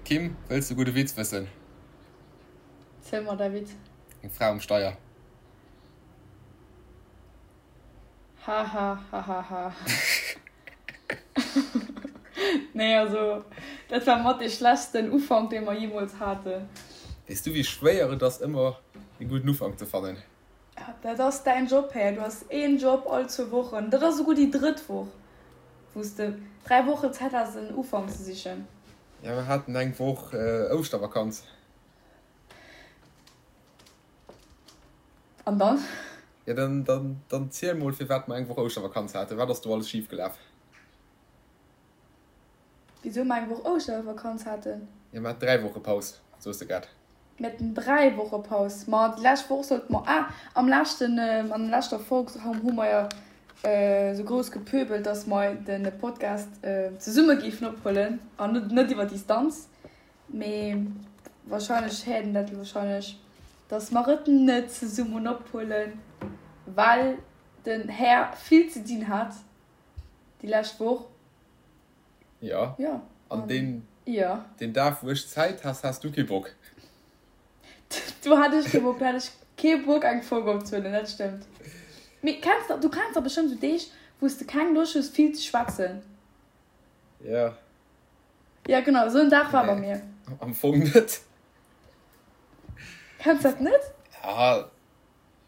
Kim, wëlls de gudde Witz wëssen? Ziel mer däi Witz. Eng Fra um Steier. Haha hahaha Nee also dat war mat dee schlechtsten Ufank dee mer jeemools haten. Weess du wéi schwéier et ass ëmmer e gudden Ufank ze fannen? Dat ass däin Job Här, du has een Job all zwou Wochen, dat ass esouguer déi drëtt Woch wou s de 3 Wochen Zäit has en Ufank ze sichen. Jo mer haten eng Woch Ouschtervakanz. An dann? Jo, dann, dann, dann ziel mol, firwat mer eng Woch Ouschtervakanz haten. Wat ass do alles schif gelaf? Wisou mer eng Woch Ouschtervakanz haten? Jo, mer haten 3 Woche Paus, soos de grad. Mir haten 3 Woche Paus. Ma déi lescht Woch sollte mer, ah, am leschten, an der leschter Folg hu mer jo esou grouss gepöbelt, dass mer de Podcast zesumme géifen ophuelen an net, net iwwer Distanz. Mee wahrscheinlech héiert een dat wahrscheinlech, dass mer et net zesummen ophuelen, well den Här vill ze dinn hat déi lescht Woch. Jo, Jo. an deen, Jo. deen Dag wou ech Zäit has, has du kee Bock. Do hat ech kee Bock, do hat ech kee Bock eng Folg opzehuelen, dat stëmmt. Mee kenns de, du kenns dach bestëmmt esou Deeg, wou s de keng Loscht hues vill ze schwätzen? Jo. Ja genau, esou en Dag war bei mir. Am Fong net. Kenns dat net? Ja,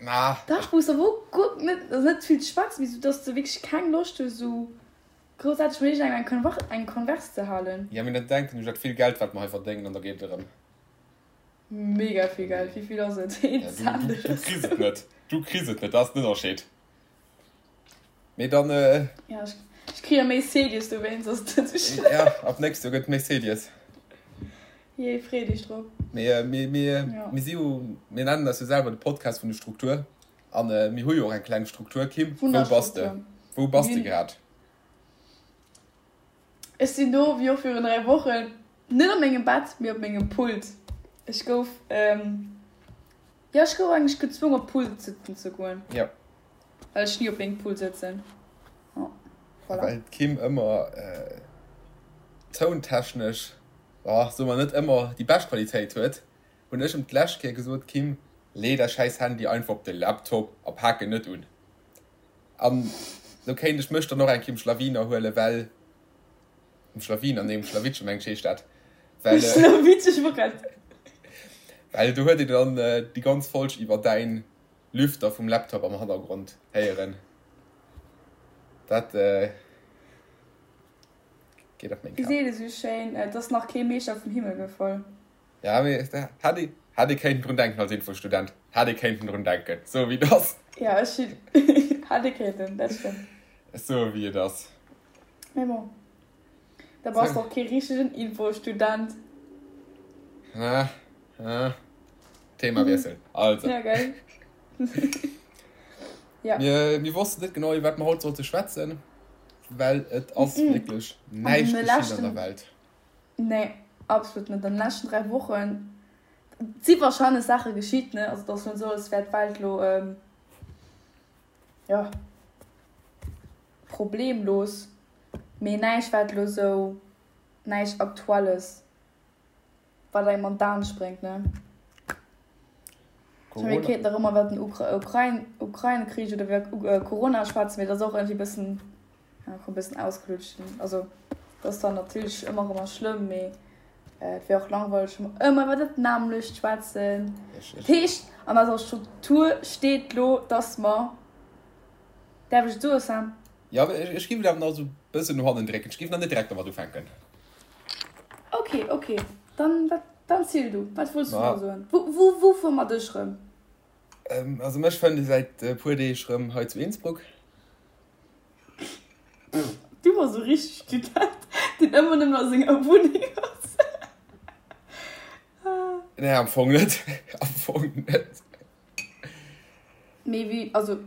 ma. Dach, wou s de wou guer net, also net vill ze schwätzen, mee sou dass de wierklech keng Loscht hues sou groussaarteg mat iergendengem eng Konver eng Converse ze halen. Ja, mee dann denken ech un dat vill Geld wat mer hei verdéngen an da geet et erëm. Mega vill Geld, wéi vill ass et? Een Cent Du oder kriss sou. et net, du kriss et net, dat ass den Ënnerscheed. Mee dann. Ja, ech, ech kritt jo méi Cedies dowéinst, ass et net sou schlëmm. Ja, ab nächst Joer gëtt et méi Cedies. Jee, free dech drop. Mee mir, mir, Ja. mir si jo, mir nennen eis jo selwer de Podcast vun de Struktur. An mir hu jo och eng kleng Struktur. Kim, wou bass de? Wunderstruktur. Wou bass de Mir hunn. grad? Ech sinn do, wéi och virun 3 Wochen, net op mengem Bett, mee op mengem Pult. Ech gouf, jo, ech gouf eigentlech gezwongen, op Pult sëtzen ze goen. Jo. Well ech ni op mengem Pult sëtzen. Jo, voilà. Well d'Kim ëmmer tountechnesch, oh, soe mer net ëmmer déi bescht Qualitéit huet, hunn ech em d'lescht Kéier gesot, Kim, lee däi schäiss Handy einfach op de Laptop a pak en net un. An lo kéint ech mech dann och eng Kéier um Schlawiner huelen, well, um Schlawiner, nee um Schlawittche mengt ech heescht dat, well, Schlawittche, ech wor grad. Well do huet een dann déi ganz Folg iwwer däin Lüfter vum Laptop am Hannergrond héieren. Dat geet op meng Wéi Kap. seet ee sou schéin, et ass nach kee Meeschter vum Himmel gefall. Ja, mee hätt ee, hätt ee kéinten drun denken als Infostudent. Hätt ee kéinten drun denken, sou wéi et ass. Ja, ech hunn, hätt ee kéinten, dat stëmmt. Sou wéi et ass. Mee bon, da bass de och kee richtegen Infostudent. Ah, ah. Themawiessel. Also. Ja, gell? Ja. Mir, mir wossten net genau, iwwer wat mer haut sollte schwätzen, well et ass wierklech näischt geschitt an der Welt. Nee, absolut net. An den leschten 3 Wochen si wahrscheinlech Saache geschitt, ne? Also et ass net esou, als wär d'Welt lo, jo, problemlos, mee näischt wat lo esou, näischt Aktuelles, wat engem an d'Aen spréngt, ne? Ech mengen, mir kéinten nach ëmmer iwwer den Ukrain, Ukrain-Krich oder iwwer Corona schwätzen, mee dat ass och iergendwéi e bëssen, ja, e bëssen ausgelutscht. Also, dat ass dann natierlech ëmmer erëm schlëmm, mee et wär och langweileg, wa mer ëmmer iwwer dat nämmlecht schwätzen. Dat heescht, an eiser Struktur steet lo, dass mer, däerf ech et soen, Sam? Jo, ech géif et awer nach esou e bëssen no hannen drécken. Ech géif nach net direkt domat ufänken. Ok, ok, dann, wat, dann ziel du, wat wollts du nach soen? Wou, wou, wou fuere mer dech rëm? Also mech fënnt ee säit e puer Deeg rëm hei zu Innsbruck. Du bass esou richteg Student, deen ëmmer nëmmen a senger Wunneng ass. Nee, am Fong net, am Fong net. Mee wéi, also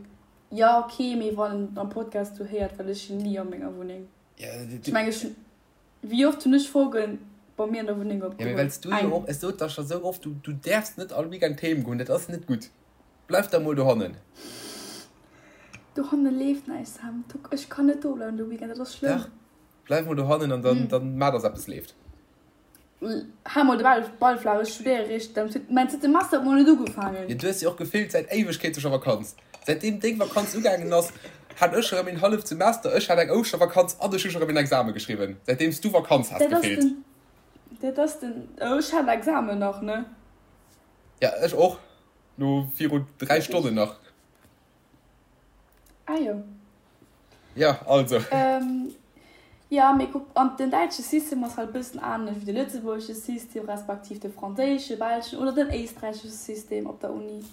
jo ok, mee wann een am Podcast do héiert, well ech sinn ni a menger Wunneng. Ech mengen, ech hunn Wéi oft hunn ech Folgen bei mir an der Wunneng Ja, mee opgeholl? wells du jo Eng. och, ech sot der scho sou oft, du, du däerfs net all Weekend heem goen, dat ass net gutt. Bleif da mol dohannen. Dohanne leeft näischt, Sam. Du, ech kann net do bleiwen de Weekend, dat ass schlëmm. Dach, bleif mol dohannen an dann, dann maa, dass eppes leeft. Hal mol de Ball, Ball flaach, ech studéiere réischt am zweeten, mäin zweete Semester huet mol net ugefaangen. Jo, du hues jo och gefillt säit Éiwegkeete scho Vakanz. Säitdeem deng Vakanz ugaangen ass, hat ech erëm een halleft Semester, ech hat eng Ouschtervakanz an ech hu scho erëm een Exame geschriwwen, säitdeem s du Vakanz has Dat ass gefillt. den, dat ass den, oh ech hat Examen nach, ne? Ja, ech och, no viru 3 Stonnen nach. Ah jo. Ja, also. Ähm, ja, mee kuck, an den däitsche System ass halt e bëssen anescht wéi de lëtzebuergesche System, respektiv de franséische, belschen oder den éisträichesche System op der Uni.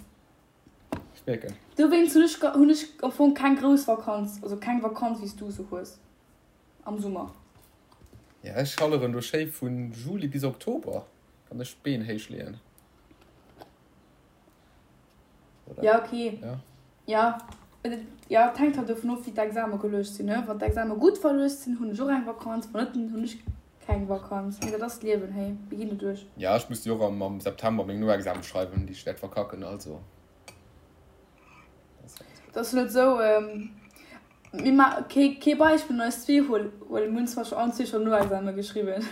Ech mierken. Dowéinst hunn ech, hunn ech am Fong keng grouss Vakanz, also keng Vakanz wéi s du se hues am Summer. Ja, ech schalleren do schéi vu Juli bis Oktober, kann ech d'Been héich leeën. Oder? Ja, okay. Ja. Ja. Ja, et hänkt halt dovun of, wéi d'Exame geluecht sinn, ne? Wann d'Exame gutt verluecht sinn, hunn ech och eng Vakanz, wann net, dann hunn ech keng Vakanz. Mee dat ass d'Liewen, hey, mir ginn doduerch. Ja, ech muss jo och am, am September meng Noexame schreiwen, déi ech wäert verkacken, also. Dat ass net esou, mir ma kee, kee Beispill un eis zwee huelen, mir hunn zwar scho allen zwee scho Noexame geschriwwen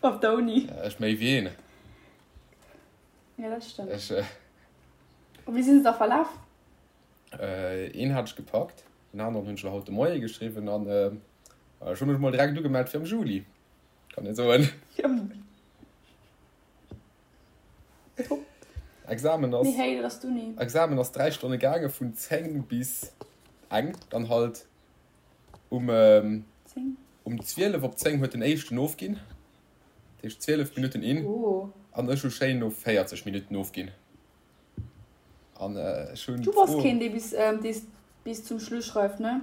op der Uni. Ja, ech méi wéi een. Ja, dat stëmmt. Ech, äh, Wéi sinn se da verlaf? Äh, een hat ech gepackt, den aneren hunn ech haut de Moie geschriwwen an äh, ech hu mech mol direkt ugemellt fir am Juli. Kann een soen. Top. Examen ass. Mee hey, dat ass d'Uni. Examen ass 3 Stonne gaange vun 10 bis eng, dann halt um, ähm, um 12 op 10 huet den éischten ofginn. Dat heescht 12 Minutten in. Oh. An ech hu schéin no 40 Minutten ofginn. An ech hunn Du bass keen, dee bis, dee bis zum Schluss schreift, ne?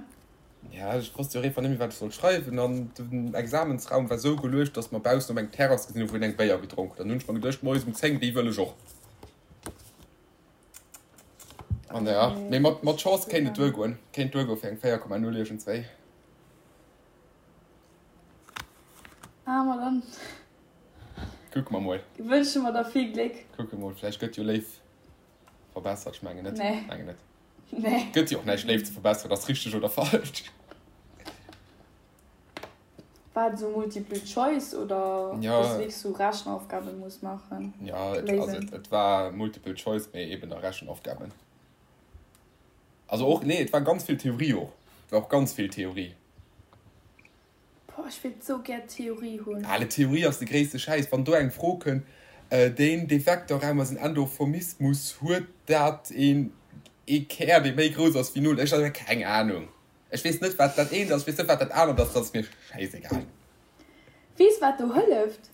Ja, ech wosst jo och einfach net méi, wat ech sollt schreiwen. An den Examensraum war sou geluecht, dass mer baussen op eng Terrass gesinn hunn, wou een eng Béier gedronk huet. An hunn ech mer geduecht, moies um 10, déi wëll ech och. An ja, mee mat, mat Chance kéint et duergoen. Kéint duergoe fir eng 4,0 iergendswéi. Ah, ma dann. Kucke mer mol. Wënsche mer der vill Gléck. Kucke mol, vläicht gëtt jo Léif verbessert. Ech mengen net. Nee. Mengen net. Nee. Gëtt jo och näischt Léif ze verbesseren, ass richteg oder falsch. War et esou Multiple Choice oder Ja. dass du wierklech sou Rechenaufgaben muss maachen? Ja, et, also Léisen. et, et war Multiple Choice, mee eben a Rechenaufgaben. Also och, nee, et war ganz vill Theorie och. Et war och ganz vill Theorie. Boah, ech wéilt sou gär Theorie hunn. Ale Theorie ass de gréisste Schäiss. Wann do eng Fro kënnt, deen dee Vektorraum ass en Endomorphismus, huet dat een ee Kär dee méi grouss ass wéi null? Ech hu keng Anung. Ech weess net wat dat eent ass, ech weess net wat dat anert ass, dat ass mir schäisegal. Weess wat do hëlleft?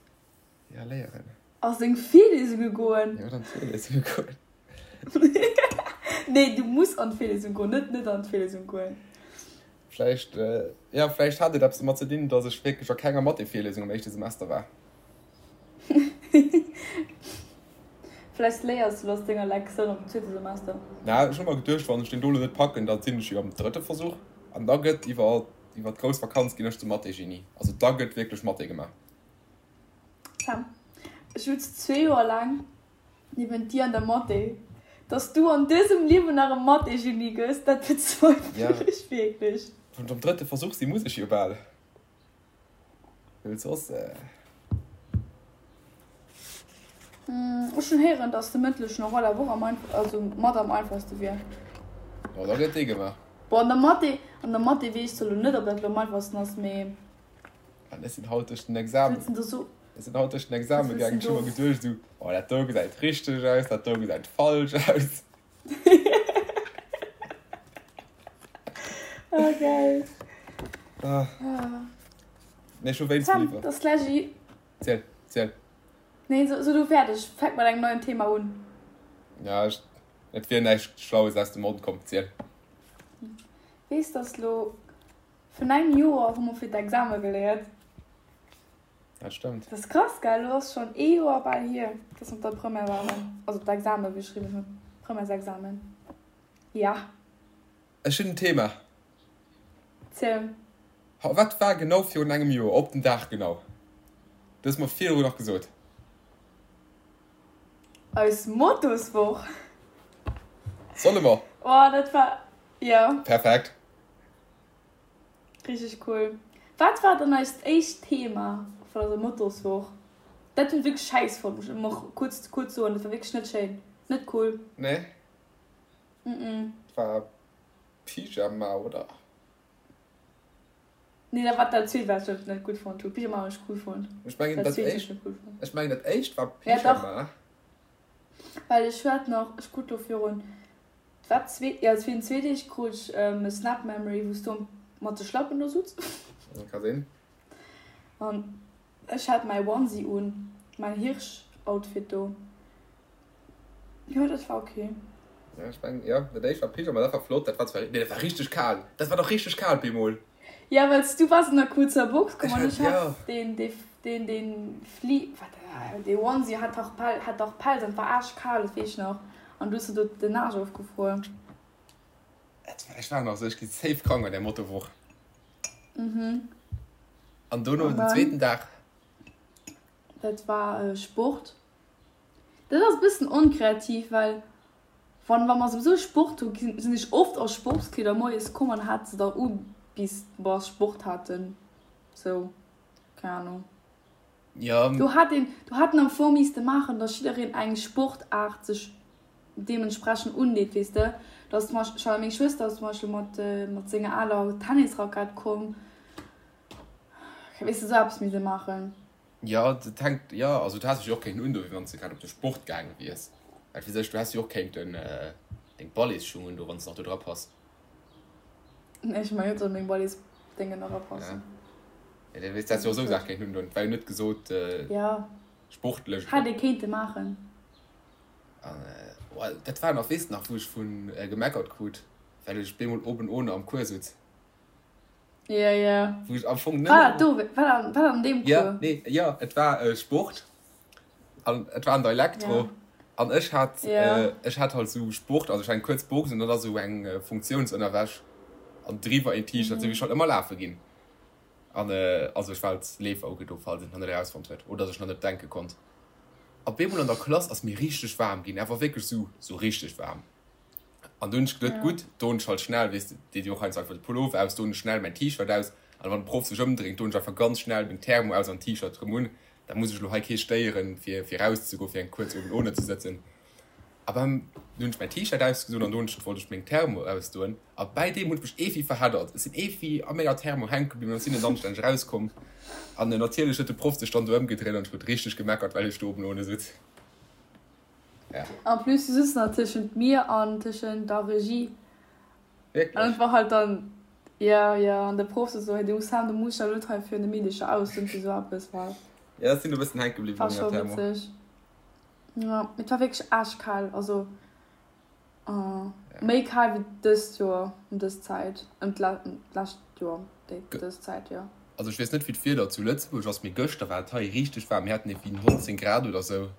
Ja, léieren. A seng Virliesunge goen. Jo, an d'Virliesunge goen. Nee, du muss an d'Virlesung goen, net net an d'Virlesung goen. Vläicht, ja, vläicht hat et eppes domat ze dinn, dass ech wierklech a kenger Mathé-Virlesung am éischte Semester war. Vläicht léiers du aus denger Lektioun am zweete Semester. Na, ech hu mer geduecht, wann ech deen do lo net packen, da sinn ech jo am drëtte Versuch. An da gëtt iwwer, iwwer d'grouss Vakanz ginn ech zum Mathé-Genie. Also da gëtt wierklech Mathé gemaach. Sam, ech sutz zwee Joer laang niewent dir an der Mathé. Dass du an dësem Liewen nach e Mathé-Genie gëss, dat bezweifelen ech wierklech. Wann ech am drëtte Versuch sinn, muss ech jo bal, well soss. Ech hunn héieren, dass de mëndlechen Oral awer och am einfach, also mat am einfachste wier. Jo, da gëtt dee gemaach. Bon, an der Mathé, an der Mathé weess ech zwar elo net, ob dat elo am einfachsten ass, mee. An ech sinn haut duerch den Examen, ech sinn haut duerch den Examen gaangen, ech hu mer geduecht esou, oh dat do gesäit richteg aus, dat do gesäit falsch aus. Oh geil. Ah. Nee, ech hu wéinst Sam, dat ass gläich. Ziel, ziel. Nee, so, so du fäerdeg, fänk mat engem neien Thema un. Ja, ech, et wier näischt Schlaues aus dem Mond komm, ziel. Weess, dass lo Vun engem Joer hu mer fir d'Exame geléiert. Dat stëmmt. Dat ass krass, gell? Elo ass schonn ee Joer bal hier, dass mer op der Première waren, also d'Exame geschriwwen hunn, Premièresexamen. Ja. Ech hunn en Thema. Ziel. Wat war genau virun engem Joer, op den Dag genau? Du hues mer virdru nach gesot. Eis Motoswoch. Solle mer? Oh, dat war, jo. Perfekt. Richteg cool. Wat war dann eist éischt Thema vun eiser Motoswoch? Dat hunn ech wierklech schäiss fonnt, muss ech och kuerz, kuerz soen. Dat war wierklech net schéin. Net cool. Nee? Mm. Dat war Pyjama, oder? Nee, dat war dat zweet, wat ech net gutt fonnt hunn. Pyjama hunn ech cool fonnt. Ech mengen, dat éischt, ech mengen, dat éischt war Pyjama. Ja, dach. Well ech hat nach, ech krut do virun, wat, zwee, jo, virun zwee Deeg krut ech e Snap Memory, wou s du mat de Schlappen do sutz. Ka sinn. An ech hat mäi Onesie un, mäin Hirsch-Outfit do. Jo, dat war ok. Ja, ech mengen, jo, dat éischt war Pyjama, dat war flott, dat war zwar, nee, dat war richteg kal, dat war dach richteg kal bemol. Ja, well s du waars an der kuerzer Box komm an ech hat deen, dee, deen, deen Fli, wat, dee Onesie hat dach Pel, hat dach Pelz an et war aarschkal, dat weess ech nach, an du hues der do den Aarsch ofgefruer. Ech war nach esou, ech gi safe krank an där Mottowoch. Mhm. An dono den zweeten Dag? Dat war Sport. Dat ass e bëssen onkreativ, well wann wa mer souwisou Sport hu sinn ech oft a Sportskleeder moies komm an hat se da u bis mer Sport haten. Sou, keng Ahnung. Jo. Do hat een, do hat en am Fong misste maachen, datt jiddereen eng Sportaart sech deementsprechend undeet, weess de. Datt zum Beispill, meng Schwëster ass zum Beispill mat mat senger aler Tennisrackett komm, weess de, sou eppes misste maachen. Jo, dat hänkt, jo, also du häss dech jo och kéinten undoen, wéi wann s de grad op de Sport gaange wiers. Well fir sech, du häss jo och kéinten deng Balletsschung undoen, wann s de nach do dra pass. Nee, ech mengen net, datt meng Balletsdéngen nach erapassen. Ja, dat weess, du häss jo och esou Saache kéinten undoen. Et war jo net gesot, Ja. sportlech. Hätt ee kéinte maachen. An, oh, dat war nach, weess de nach, wou ech vu gemeckert krut, well ech bemol oben ohne am Cours sutz. Ja, ja. Wou ech am Fong net. War dat do? War dat, war dat an deem Cours? Ja, nee, ja, et war äh, Sport. An et war an der Elektro. Ja. An ech hat, ja. äh, ech hat halt sou Sport, also ech hat eng kuerz Box an dann sou eng äh, Funktionsënnerwäsch an driwwer een T-Shirt, mm. sou wéi ech halt ëmmer lafe ginn. An äh, also ech war als Leefer ugedo, falls een et nach net erausfonnt huet oder sech nach net denke konnt. Op eemol an der Klass ass mir richteg waarm ginn, awer wierklech sou, sou richteg waarm. An dunn hunn ech geduet, gutt, doen ech halt schnell, weess de, deet jo och heiansdo einfach de Pullover aus, doen ech schnell mäin T-Shirt aus. An wann de Proff sech ëmdréint, doen ech einfach ganz schnell meng Thermo aus an T-Shirt erëm un. Da muss ech elo hei kee stéieren, fir, fir erauszegoen, fir eng kuerz oben ohne ze sëtzen. A beim, dunn hunn ech mäin T-Shirt ausgedoen an dunn wollt ech meng Thermo ausdoen. A bäi deem hunn ech mech eeffi verheddert. Ech sinn eeffi a menger Thermo hänke bliwwen an sinn net anstänneg erauskomm. An natierlech huet de Proff sech dann do ëmgedréint an ech krut richteg gemeckert, well ech do oben ohne sutz. Ja. En plus du sitzt nach tëschent mir an tëschent der Regie. Wierklech? An et war halt dann, ja, ja, an de Proff so, hey, du Sam, du muss ja net hei fir de Meedecher aus, und so eppes war. Ja, ech sinn e bëssen hänke bliwwen War scho witzeg. Ja, et war wierklech aarschkal, also uh, méi kal wéi dëst Joer ëm dës Zäit, ëm d'lescht Joer déi dës Zäit, jo. Also ech weess net wéi d'Wieder zu Lëtzebuerg ass, mee gëschter war et hei richteg waarm, mir haten ewéi 19 Grad oder sou.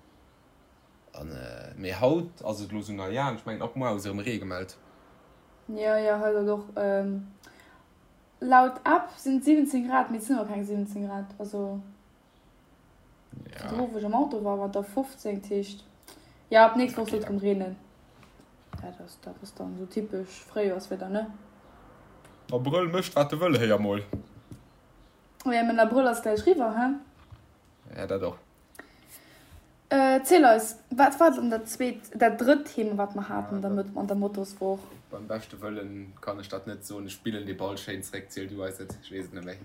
An mee haut ass et elo sou, na ja, ech mengen ab muar ass erëm Ree gemellt. Jo, jo, hei soll och laut App sinn et 17 Grad, mee et sinn awer keng 17 Grad, also virdru wou ech am Auto war, war et der 15, dat heescht jo ab nächst Woch soll et erëm reenen. Dat ass, dat ass dann sou typesch Fréijoerswieder, ne? Abrëll mécht wat e wëll, héier mol. Jo, mä den Abrëll ass gläich riwwer, he? Ja, dat och. Ziel eis, wat war dann dat zweet, dat drëtt Thema, wat mer haten an der, an der Mottoswoch? Beim beschte Wëllen kann ech dat net soen. Ech spillen dee Ball schéin zréck. Ziel du eis et, ech weess et net méi.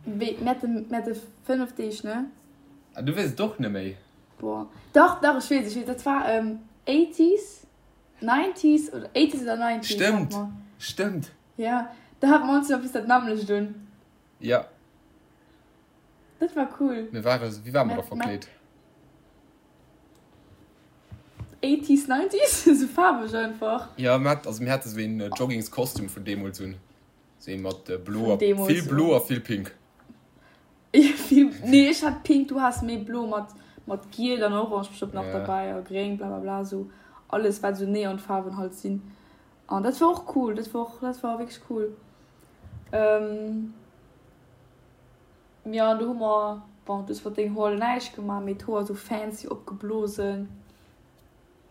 Wéi, mir hate, mir hate 5 Deeg, ne? Ah, du weess et och net méi? Boah, dach, dach, ech weess, ech weess, dat war Eighties, Nineties oder Eighties oder Nineties hate mer. Stëmmt, stëmmt. Ja, da hate mer ons jo eppes dat nämmlecht un. Ja. Dat war cool. Mir ware, wéi ware mer da verkleet? Eighties, nineties, sou faarweg einfach. Jo, mir hat, also mir hate sou een Joggingskostüm vun deemools un. Sou ee mat blo a, vill blo a vill pink. Vill, nee ech hat pink, du has méi blo mat, mat giel an orange bestëmmt nach derbäi a gréng, blablabla, sou alles wat sou Neonfaarwen halt sinn. An dat war och cool, dat war och, dat war wierklech cool. Jo, an do hu mer, bon, du hues mat dengem Hoer näischt gemaach, mee d'Hoer sou fancy opgeblosen.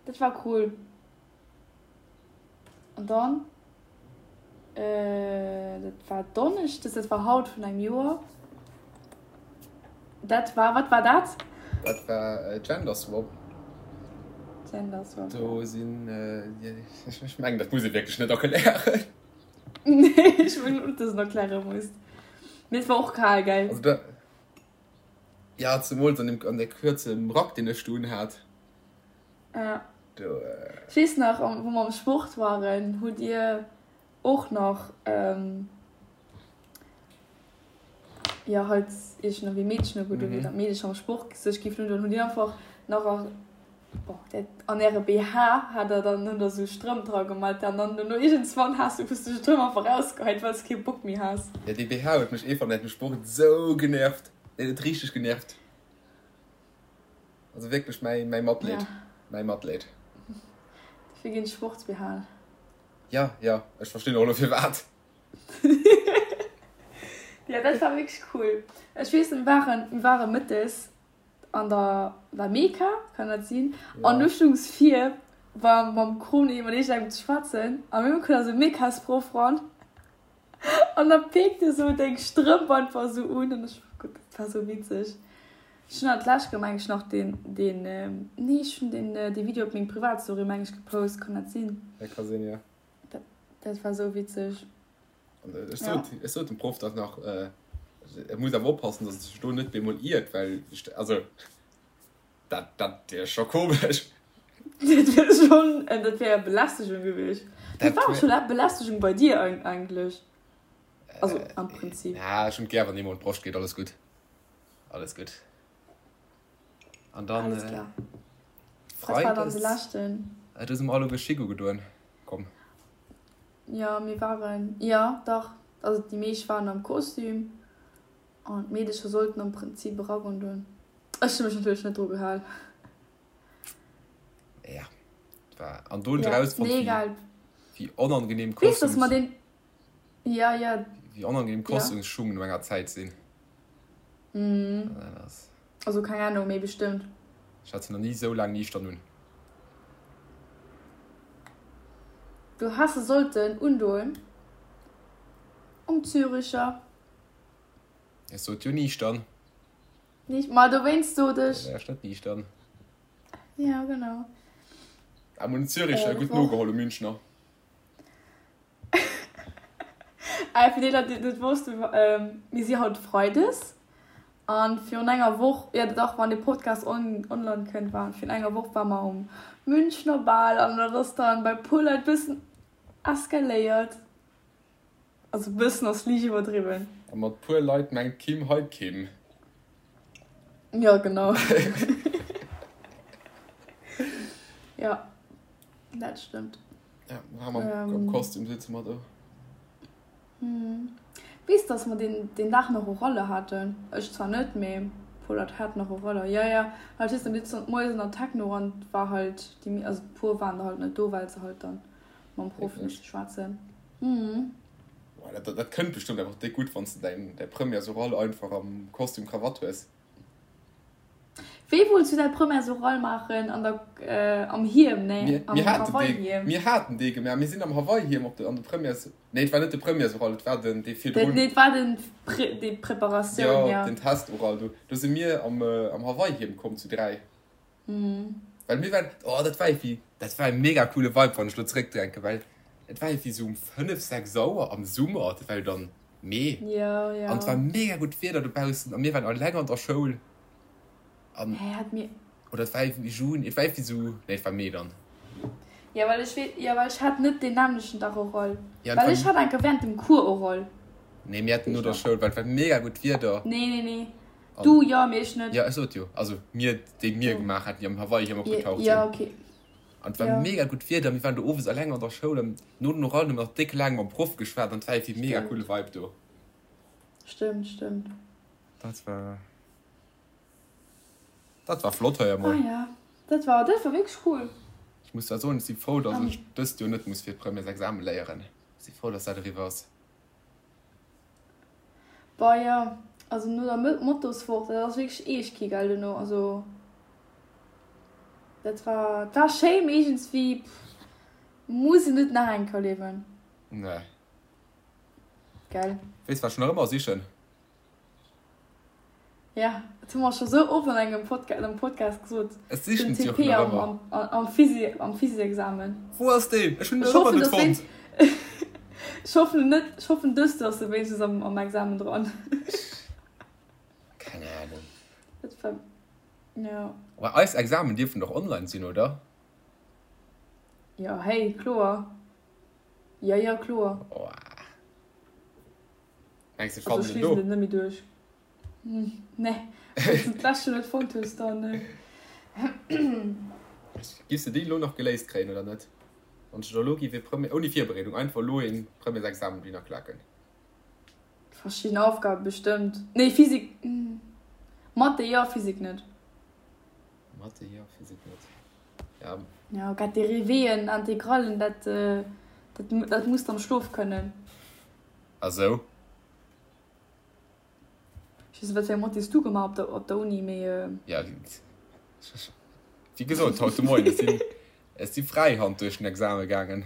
Dat war cool. An dann, dat war Donneschdes, dat war haut vun engem Joer. Dat war, wat war dat? Dat war Gender Swap. Gender Swap. Do sinn, ech mengen dat muss ee wierklech net erklären. Nee, ech mengen och, dass een erkläre muss. Mee et war och kal, gell? Also da, ja, zemools an deem, an där kuerzem Rack, deen ech do unhat. Ja. Do. Ech weess nach, wou mer am Sport waren, hutt Dir och nach, jo halt iergendwéi Meedchen ugedoen hutt an d'Meedecher am Sport sech giffen undoen, hutt Dir einfach nach a bon dat an äre BH hat der dann hunn der sou Strëmp dra gemat an dann dono iergendswann has du hues du Strëmp einfach rausgeheit well s kee Bock méi has. Jo dee BH huet mech eefach während dem Sport sou genervt, deen huet richteg genervt. Also wierklech mäi mäi Matleed, mäi Matleed. Dofir ginn Sports-BHen. Jo, jo, ech verstinn och elo firwat. Jo, dat war wierklech cool. Ech weess, mir waren, mir ware mëttes an der La Meka, kann dat sinn? An du stungs vir war mam Kroni mat iergendengem ze schwätzen a mir koum da sou Mekasproff ran an da peekt e sou deng Strëmp einfach sou un an ech, gutt, dat war sou witzeg. Ech hunn dat d'lescht Kéier meng ech nach deen, deen, nee ech hunn deen, dee Video op meng Privatstory meng ech gepost, kann dat sinn? Dat ka sinn, jo. Dat, dat war sou witzeg. An ech sot, ech sot dem Proff dat nach, e muss awer oppassen, datt e sech do net bemol iert, well, also dat, dat wier scho komesch. Dat wier schonn, dat wär Belästegung gewiescht. Dat war och scho Belästegung bei dir eigentlech. Also am Prinzip. Ja, ech hunn et gär, wann ee mer un d'Broscht geet, alles gutt. Alles gutt. An dann. Alles klar. Wat war dann de leschten? Do si mer all uewe Schick ugedoen komm. Jo, mir waren, jo dach, also déi meescht waren am Kostüm an d'Meedecher sollten am Prinzip e Rack undoen. Ech hu mech natierlech net dru gehal. Ja, war an do hunn ech erausfonnt, Nee, egal. wéi onangenehm Weess, dass mer deen. Ja, ja. Wéi onangenehm Kostümsschung no enger Zäit sinn. Mhm. Also keng Ahnung, mee bestëmmt. Ech hat se nach ni esou laang niichtern un. Du häss se sollten undoen um Züricher. Ech sot jo niichtern. Nicht, ma dowéinst sot ech. Da wär ech net niichtern. Ja, genau. Am un Züricher gutt nogeholl um Münchner. Äh, fir déi Leit, déi et net wossten, mir si haut Freides an virun enger Woch, jo dach, wann de Podcast on online kënnt, war virun enger Woch war mer um Münchner Bal an dat ass dann bei puer Leit bëssen eskaléiert. Also bëssen ass liicht iwwerdriwwen. A mat puer Leit mengt d'Kim hei d'Kim. Jo, genau. Jo, dat stëmmt. Ja, mam ähm, Kostüm sitze mer do. Hm. Weess, dass mer den, den Dag nach Oralle haten. Ech zwar net, mee puer Leit haten nach Oraller. Ja, ja, halt weess, dann sitze moies an der Techno an war halt déi, also puer waren da halt net do, well se halt dann mam Proff misste schwätzen. Mhm. Boah, dat, dat, dat kënnt bestëmmt einfach déck gutt, wann s de däin, däi Premières-Oral einfach am Kostüm Krawatt hues. Wéi wollts du däi Premières-Oral maachen? An der, am Hiem, nee, am Hawaii-Hiem. Mir haten dee gemaach. Mir sinn am Hawaii-Hiem op de, an de Premières, nee, et war net de Premières-Oral, et war den, dee virdrun. Nee, et war den, déi Preparatioun, jo. Den Test-Oral. Do, do si mir am, am Hawaii-Hiem komm zu 3. Well mir waren, oh dat war irgendwie, dat war e mega coole Vibe, wann ech lo zeréckdenken, well et war irgendwie sou um 5, 6 Auer am Summer, dat war jo dann Mee, Ja, ja. an et war mega gutt Wieder dobaussen a mir waren alleng an der Schoul an, Hä, hat mir. oder et war irgendwie Juni, et war irgendwie sou, nee et war Mee dann. Ja, well ech wee, ja, well ech hat net deen nämmlechten Dag Oral. Ja, Well ech hat enker während dem Cours Oral. Nee, mir haten no der Schoul, well et war mega gutt Wieder. Nee, nee, nee. Du jo, mee ech net. Jo, ech sot jo. Also mir, déi mir gemaach haten, déi am Hawaii-Hiem opgetaucht sinn. Jo, okay. An et war mega gutt Wieder, mir waren do owes eleng an der Schoul an no den Orallen hu mir nach déck laang mam Proff geschwat an et war iergendwéi mega coole Vibe do. Stëmmt, stëmmt. Dat war, dat war flott hei emol. Ah ja, dat war, dat war wierklech cool. Ech muss zwar soen, ech si frou, datt ech dëst Joer net muss fir d'Premièresexame léieren. Ech si frou, datt dat eriwwer ass. Boah jo, also no der Motoswoch, dat ass wierklech eescht kee Geld duerno, also dat war, war schéi mee iergendswéi muss een net nach eng Kéier erliewen. Nee. Gell. Weess wat ech nach ëmmer sichen? Ja, dat hu mer scho sou oft an engem Podca am Podcast gesot. Ech sichen Den se och TP nach am, ëmmer. am, am Physi am Physiexamen. Wou ass deen? Ech hunn en Ech nach ëmmer hoffen, net dass fonnt. wéinst Ech hoffen net, ech hoffen dëst ass e wéinstens am, am Examen dran. Keng Ahnung. Dat war, ja. Mä eis Examen dierfen doch online sinn, oder? Jo, hey, kloer. Jo, jo, kloer. Oh. Mengs du, ech Also fannen ech en liesen do? et net méi duerch. Nee, wann s du d'lescht Joer net fonnt hues, dann. Giffs de déi elo nach geléist kréien oder net? Wann ech der elo giff ee Premier, ouni Virbereedung, einfach elo ee Premiersexamen dohinner klaken. Verschidden Aufgabe bestëmmt. Nee, Physik, Mathe jo, Physik net. Mathe jo, Physik net. Ja. Ja, grad Dérivéeën, Integrallen, dat, dat, dat muss de am Schlof kënnen. A sou? Ech weess net, wat fir eng Mathé s du gemaach op der, op der Uni, mee. Ja, wéi gesot, haut de Moien, ech sinn, ech si Fräihand duerch den Exame gaangen.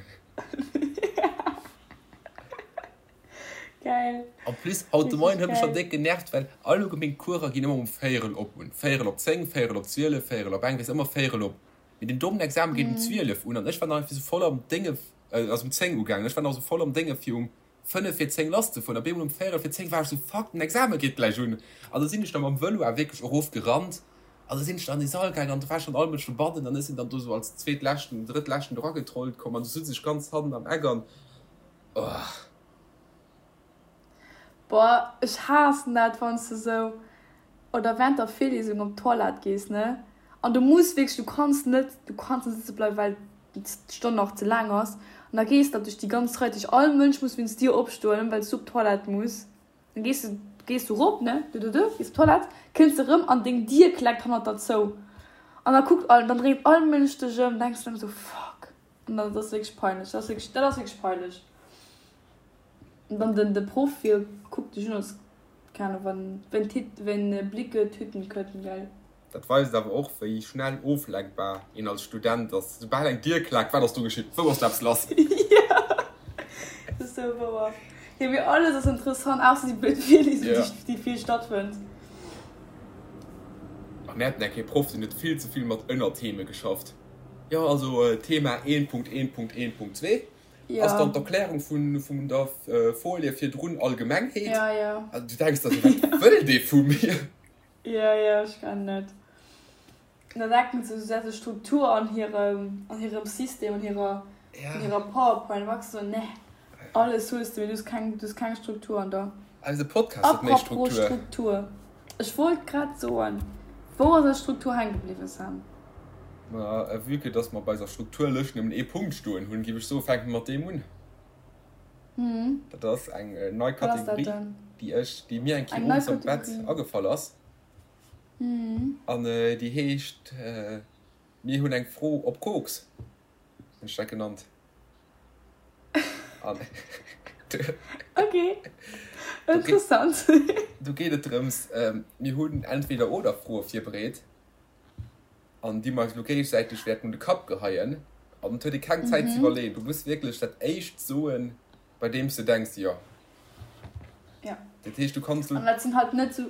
Geil. En plus, haut de Richtig Moien huet mech schonn geil. déck genervt, well allgemeng Courser ginn ëmmer um Véierel op un. Véierel op 10, Véierel op 12, Véierel op eng, weess ëmmer Véierel op. Mee den dommen Examen geet um 12 un an ech war nach iergendwéi sou voll am Dénge, ass um 10 ugaangen, ech war nach sou voll am Dénge fir um 5 vir 10 lass ze fueren. Op eemol um Véierel vir 10 war ech sou, fuck, den Examen geet gläich un. An da sinn ech da mam Vëlo awer wierklech erof gerannt an da sinn ech da an dee Sall gaangen an do war schonn all Mënsch dobannen an ech sinn dann do sou als zweetleschten, drëttleschten do ragetrollt komm an du sutz ech ganz hannen am Eck an, oh. Boah, ech haassen dat, wann s de sou oder während der Virlesung op d'Toilette gees, ne, an du muss wierklech, du kanns net, du kanns net sëtze bleiwen, well d'Stonn nach ze laang ass, an da gees de duerch déi ganz Rei, duerch all Mënsch muss wéinst dir opstoen, well s du op d'Toilette muss, dann gees de, gees du rop, ne, du du du, gees op d'Toilette, kënns de rëm an deng Dier kleckt hannert der zou, an da kuckt all, dann dréit all Mënsch dech ëm, denks de ëm sou, fuck, an dat ass wierklech peinlech, dat ass wierklech, dat ass wierklech peinlech. An dann den, de Proff, hie kuckt dech un als Keine Ahnung, wann, wenn Tit, wenn Blicke Tüten könnten, gell? Dat weist awer och, wéi schnell oflenkbar een als Student ass. Soubal eng Dier klaakt, wat ass do geschitt? Wou ass do eppes lass? Jo, dat ass sou wouer. Jo, mee alles ass interessant, ausser déi blöd Virliesung, Ja. déi vill stattfënnt. A mir haten eng Kéier e Proff, deen huet vill ze vill mat Ënnertheme geschafft. Jo, also Thema 1.1.1.2. Ass dann d'Erklärung vun der Folie virdrun Allgemengheet? Ja, ja. Also du denks der sou, wat wëll dee vu mir? Ja, ja, ech kennen et. An da denken se, se hätte Struktur an hirem, an hirem System, an hirer, an hirer PowerPoint. An da sou, nee, alles hues de, mee du hues keng, du hues keng Struktur an der. Eise Podcast huet méi Apropos Struktur. Struktur, ech wollt grad soen, wou ass eis Struktur hänke bliwwen, Sam? Ma vue que dass mer bei eiser Strukturlëscht nëmmen ee Punkt stoen hunn, géif ech soen, fänke mer mat deem un. Dat ass eng nei Kategorie, déi ech, déi mir eng Kéier owes am Bett agefall ass. An déi heescht, Mir hunn eng Fro op Koks, hunn ech dat genannt. An Ok, interessant. Do geet et drëms, mir hunn Entweder-oder-Froe virbereet. an déi mer eis elo géigesäiteg wäerten un de Kapp geheien an et huet ee keng Zäit ze iwwerleeën. Du muss wierklech dat éischt soen, bei deem s de denks, jo. Ja. Dat heescht, du kanns elo. An dat sinn halt net sou,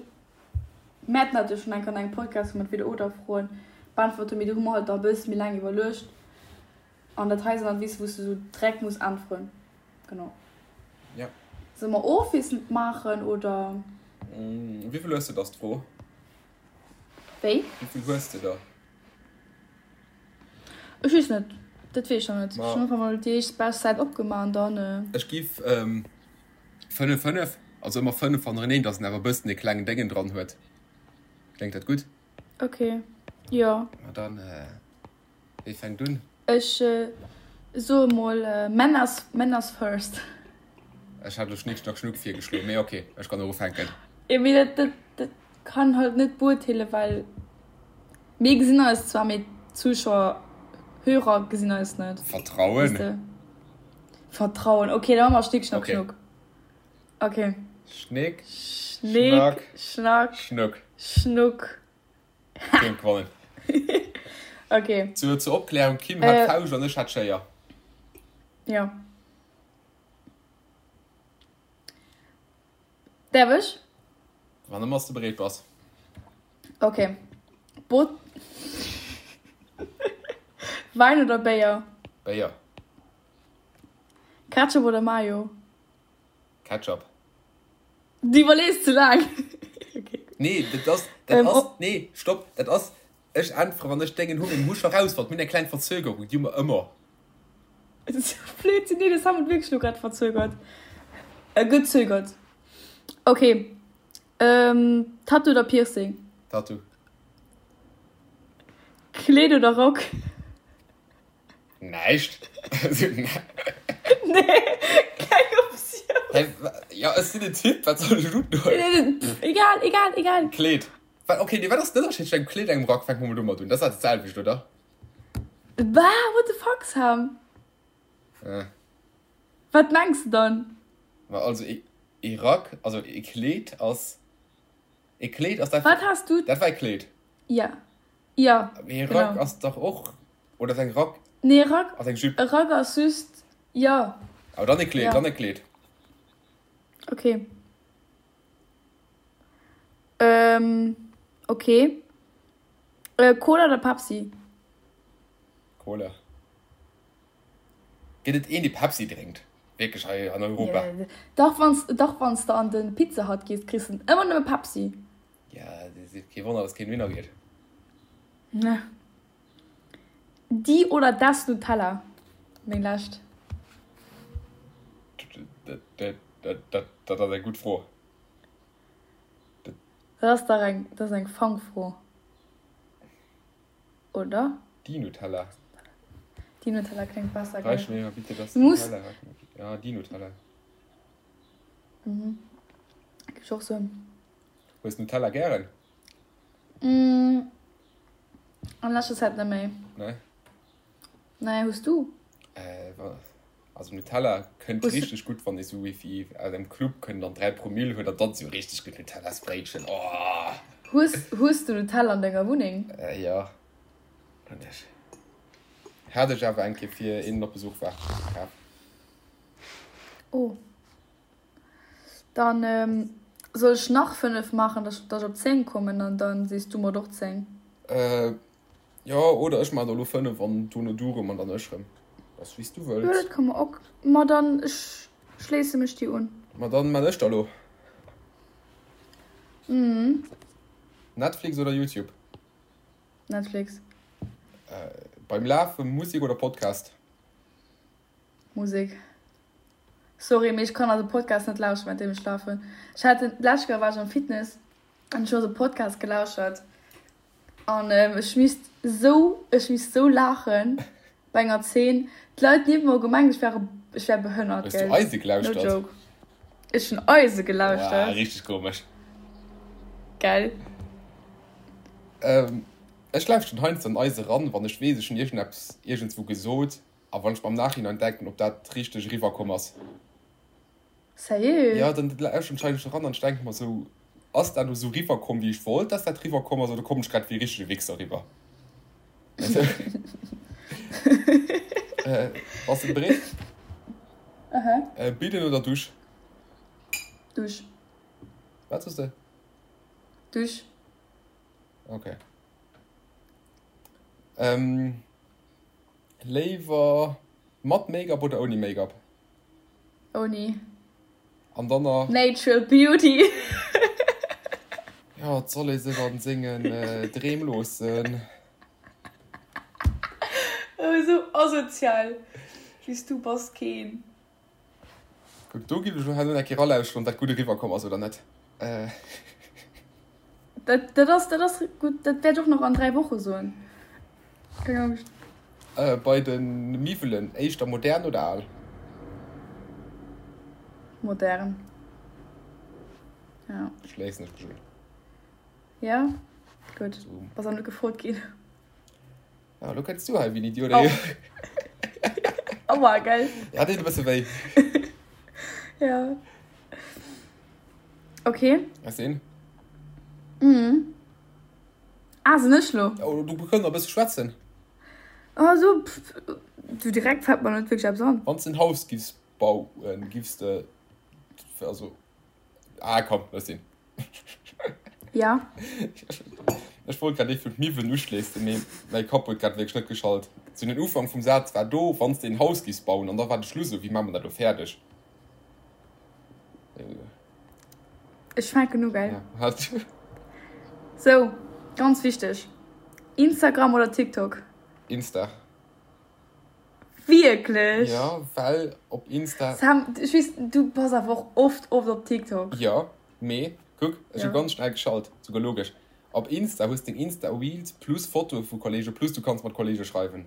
mir haten dat jo schonn eng Kéier an engem Podcast, wou mer d'Entweder-oder-Froen beäntwert hunn, mee do hu mer halt da e bësse méi laang iwwerluecht. An dat hei sinn halt, weess de, wou s de sou direkt muss äntweren. Genau. Ja. Solle mer ofwiesselnd maachen, oder? Wéi vill hues de, ass d'Fro. Wéi? Wéi vill hues de der? Ech weess net, dat weess ech nach net. Ech hunn einfach mol déi éischt bescht Säit opgemaach an dann. Ech giff 5, 5, also ëmmer 5 hannereneen, dass en awer e bëssen e klengen Déngen dran huet. Kléngt dat gutt? Ok, jo. Ma dann. Wie fänkt un? Ech soe mol Männers, Männers first. Ech hat elo Schnick Schnack Schnuck virgeschloen, mee ok, ech kann och ufänken. Jo, mee dat, dat, dat kann halt net beurteelen, well mir gesinn eis zwar, mee d'Zuschauer, Hörer gesinn eis net. Vertrauen. Weess de? Vertrauen, ok, da maache mer Schnick Schnack Ok. Schnuck. Ok. Schnick Schnick Schnack Schnack Schnuck. Schnuck. Kim gewonnen. Okay. Zur, zur Opklärung, Kim hat äh, Fauscht an ech hat Schéier. Ja. Därf ech? Wann ëmmer du bereet bass. Ok. Bot. Wäin oder Béier? Béier. Ketchup oder Mayo? Ketchup. Du iwwerlees ze laang. Okay. Nee, dat ass, dat ähm, ass, nee, stopp, dat ass, ech äntwere wann ech dengen hu meng Husch erausfonnt, mir hunn eng kleng Verzögerung, déi hu mer ëmmer. Blödsinn, nee, das haben wir wirklich nur grad verzögert. Äh, gezögert. Okay. Ähm, Tattoo oder Piercing? Tattoo. Kleed oder Rock? Näischt. Nee, keng Optioun. Hä, ja, ech sinn en Typ, wat soll ech undoen? Egal, egal, egal. Kleed. Wat, okay, nee, wat ass den Ënnerscheed tëscht engem Kleed an engem Rack? Fänke mer mol domat un. Dat ass dat selwecht, oder? Bah, what the fuck, Sam? Äh. Wat mengs de dann? Ma also, e Rack, also e Kleed ass, e Kleed ass dat, Wat has du? Dat war e Kleed. Ja. Jo, Mee e Rack ass dach och, oder ass eng Rack? Nee, e Rack, ass eng Jupe. E Rack ass just, jo. Awer dann e Kleed, ja. Dann e Kleed. Okay. Ähm, okay. Äh, Cola oder Pepsi? Cola. Gëtt et een, dee Pepsi drénkt? Wierklech hei an Europa? Yeah. Dach, wanns, dach, wanns de an de Pizza Hut gees, kriss de ëmmer nëmme Pepsi. Ja, kee Wonner, dass keen dohinner geet. Ne. Die oder das Nutella? Meng lescht. Dat ass eng gutt Fro. Dat ass dach eng, dat ass eng Fangfro, oder? Die Nutella. Die Nutella kléngt besser, gell? Reich mir bitte das Nutella. Ja, die Nutella. Mhm. Gif ech och soen. Hues Nutella gären? Mm, an leschter Zäit net méi. Nee? Nee, hues du? Äh, also Nutella kënnt Hues richteg gutt, wann ee sou wéi aus engem Club kënnt an 3 Promille huet an dann sou richteg gutt Nutellasbréitchen, oh! Hues, hues du Nutella an denger Wunneng? Äh, jo, hunn ech. Hat ech awer eng Kéier fir een op Besuch war, kaf. Oh. Dann soll ech nach 5 maachen, dass ech op 10 kommen an dann sees du mer och 10. Jo, oder ech maachen der elo 5 an dono du rëm an dann ech rëm. Ass wéi s du wëlls. Jo, dat ka mer och. Ma dann ech schléisse mech dir un. Ma dann maan ech der elo. Mhm. Netflix oder YouTube? Netflix. Beim Lafe Musek oder Podcast? Musek. Sorry, mee ech kann also Podcast net lauschteren während deem ech lafen. Ech hat den d'lescht Kéier war ech am Fitness an ech hu also Podcast gelauschert an ech misst sou ech misst sou laachen bei enger Zeen. D'Leit niewent mer hu gemengt ech wär ech wär behënnert, Hues du gell. Eise No gelauschtert? joke. Ech hunn Eise Wow, gelauschtert. richteg komesch. Gell. Ech lauschteren heiansdo an Eise ran, wann ech weess ech hunn iergendeppes iergendswou gesot A wann ech mer am Nachhinein denken, ob dat richteg eriwwer komm ass. Sérieux? Jo, dann lauschteren ech eigentlech eran an ech denke mer sou, ass dat elo sou riwwer komm, wéi ech wollt, dass dat riwwer komm ass, oder kommen ech grad wéi e richtege Wichser riwwer? Bass de bereet? Aha. Bidden oder Dusch? Dusch. Wat soss de? Dusch. Okay. Léiwer mat Make-up oder ouni Make-up? Ouni. An dann nach. Natural Beauty. Jo, et soll ee sech an sengen Dreem loossen. Oh, esou asozial wéi s du bass keen. Kuck, do giff ech lo herno eng Kéier ralauschteren, ob dat gutt eriwwer komm ass oder net. Dat, dat ass, dat ass gutt, dat wäert ech och nach an 3 Woche soen. Keng Angscht. Bei de Miwwelen, éischter modern oder al? Modern. Ja. Schléissen ech mech un. Ja, gutt. Bass awer net gefrot ginn. Ah, lo kënns du hei wéi en Idiot. Oh. Aua, gell? Ja, deet e bësse wéi. Ja. Okay. Ass een? Mhm. Ah, sinn ech lo? Oh, du kënns nach e bësse schwätzen. Ah, so, pff, du direkt fällt mer net wierklech eppes an. Wann s de en Haus giffs bauen, giffs de, also, ah, komm, looss sinn. Ja. Ech wollt grad ee vun d'Miwwen uschléissen, mee mäi Kapp huet grad wierklech net geschalt. Sou den Ufank vum Saz war do, Wann s de een Haus giffs bauen, an da war de Schluss esou, Wéi maache mer dat elo fäerdeg? Ech fänken u, gell? Ja. Sou, ganz wichteg, Instagram oder TikTok? Insta. Wierklech? Ja, well op Insta. Sam, ech weess, du bass awer och oft, oft op TikTok. Jo, mee kuck, ech hu ganz schnell geschalt, souguer logesch. Op Insta hues deng Insta Reels plus Fotoe vu Kollege plus du kanns mat Kollege schreiwen.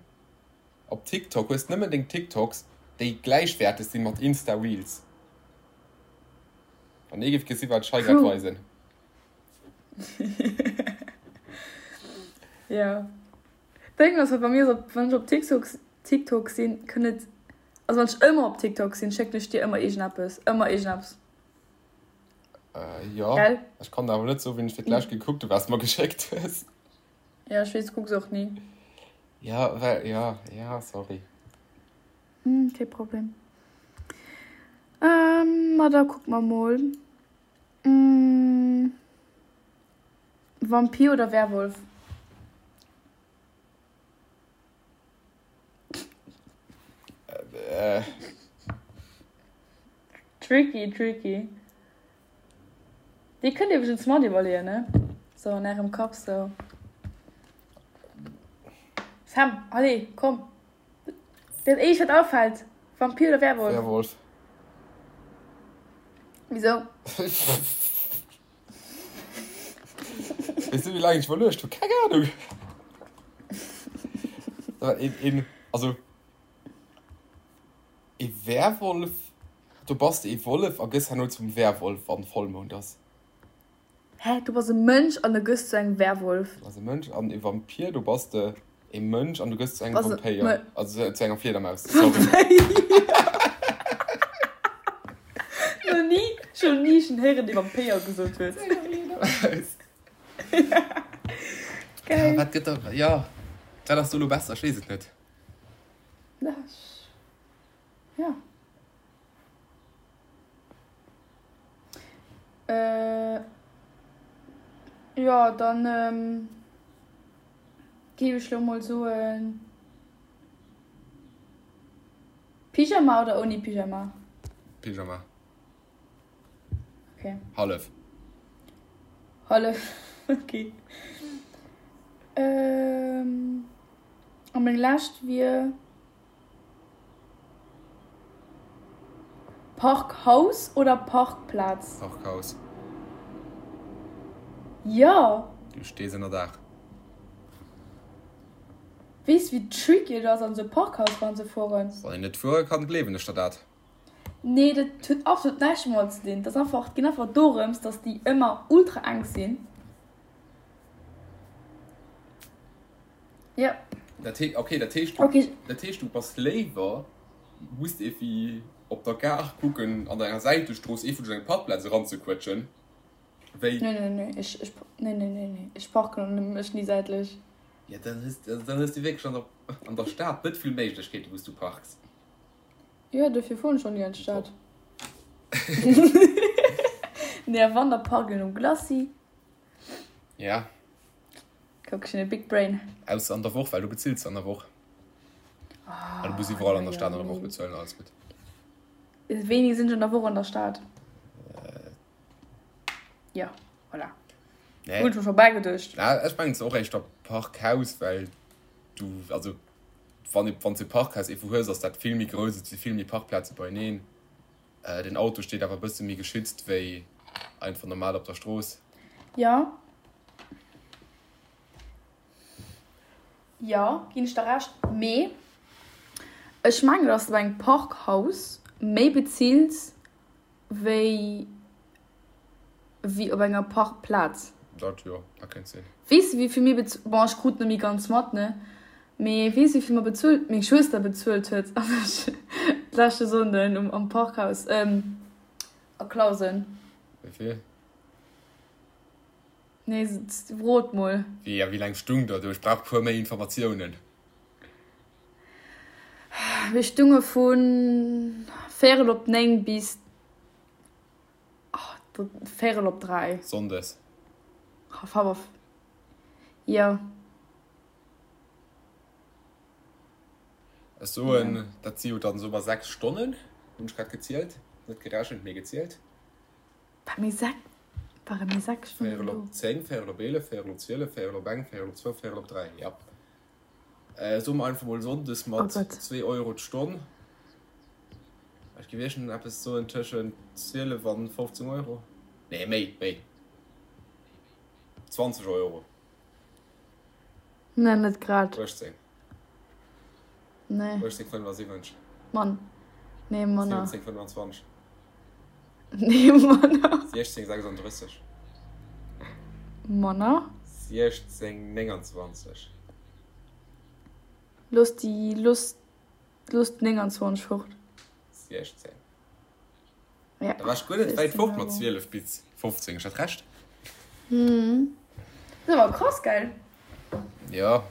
Op TikTok hues nëmmen deng TikToks, déi gläichwäerteg sinn mat Insta Reels. Wann ee géif gesi wat ech hei grad weisen. Jo. Deng ass bei mir esou, wann ech op TikTok TikTok sinn, kënnt et, also wann ech ëmmer op TikTok sinn, schécken ech dir ëmmer iergendeppes, ëmmer iergendeppes. Äh, jo. Gell? Ech kann der awer net soen, wéini ech fir d'lescht gekuckt hu wat s de mer geschéckt hues. Ja, ech weess, du kucks och ni. Ja, well, ja, ja, sorry. Hm, kee Problem. Ähm, ma da kucke mer mol. Hm. Vampir oder Werwolf? Äh. Tricky, tricky. Dir kënnt iwwregens mat iwwerleeën, ne? Sou an ärem Kapp sou. Sam, allez, komm. Dat éischt wat afält, Vampir oder Werwolf? Werwolf. Wisou? Weess du wéi laang ech iwwerluecht hu? Keng Ahnung. Een, een, also ee Werwolf, do bass de ee Wollef a gëss herno zum Werwolf wann Vollmound ass. Hä, du bass e Mënsch an du gëss zu engem Werwolf? Du bass e Mënsch an e Vampir, do bass de e Mënsch an du gëss zu engem Vampéier, also zu enger Fliedermaus, sorry. Nach ni, ech hunn ni schon héieren dee Vampéier gesot huet. Geil. Ja, wat gëtt da, ja, wat ass do lo besser? Ech weess et net. Ja. Äh, jo, dann géif ech lo mol soen, Pyjama oder ouni Pyjama? Pyjama. Okay. Hallef. Hallef, okay. Ähm, a meng lescht wier. Parkhaus oder Parkplaz? Parkhaus. Jo! Du stees ënner Daach. Weess wéi tricky et ass an esou e Parkhaus ran ze fueren? Wann een net fuere kann, gleewen ech der dat. Nee, dat huet absolut näischt domat ze dinn. Dat ass einfach, et geet einfach dorëms, dass déi ëmmer ultra enk sinn. Jo. Dat heescht, okay, dat heescht, okay. Dat heescht, du bass léiwer, muss evi op der Gare kucken, an enger Säitestrooss ee vun eng Parkplaz eranzequetschen, wéi. Nee, nee, nee, ech, ech, nee, nee, nee, nee, ech parken mech ni säitlech. Ja, dann hues, dann hues du wierklech an der, an der Stad net vill Méiglechkeeten, wou s du parks. Jo, dofir fueren ech och ni an d'Stad. Nee, a wann, da parken ech um Glacis. Ja. Kuck, ech hunn e big brain. Ausser an der Woch, well du bezills se an der Woch. Ah, du muss iwwerall an der Stad an der Woch bezuelen, alles gutt. Wéini sinn ech an der Woch an der Stad? Ja, voilà. Nee. Hunn ech mer scho bäigeduecht. Na, ech mengen, et ass och éischter Parkhaus, well du, also wann, wann s de e Parkhaus iergendwou hues, ass dat vill méi grouss, et si vill méi Parkplaze beieneen. Den Auto steet awer e bësse méi geschützt wéi einfach normal op der Strooss. Jo. Jo, ginn ech der Recht. Mee ech mengen, dass de bei engem Parkhaus méi bezills wéi wéi op enger Parkplaz. Dat jo, dat kéint sinn. Weess de wéivill mir bez-, bon ech krut net méi ganz mat ne, mee weess de wéivill mer bezuelt, meng Schwëster bezuelt huet an ech d'leschte Sonnden um am Parkhaus a Clausen? Wéivill? Nee, rot mol. Wéi a wéi laang stung der do? Ech brauch puer méi Informatiounen. Mir stunge vu véierel op 9 bis. Véierel op 3. Sonndes. Jo. Ech soen, dat si jo dann soe mer 6 Stonnen, hunn ech grad gezielt, net gerechent, mee gezielt. War mir 6, ware mir 6 Stonnen Véierel do? op 10, véierel op 11, véierel op 12, véierel op eng, véierel op zwou, véierel op 3, ja. Soe mer einfach mol sonndes Oh mat Gott. 2 Euro d'Stonn. Ech géif iergend eppes soen tëschent 12 an 15 Euro. Nee, méi, méi. 20 Euro. Nee, net grad. 18. Nee. 18,75. Mann. Nee, manner. 17,25. Nee, manner. 16,36. Manner. 16,29. Looss déi, looss, looss 29 fort. 16. Ja. Da war ech guer net wäit fort mat 12 bis 15. Ech hat Recht. Hm. Dat ass awer krass, gell? Ja.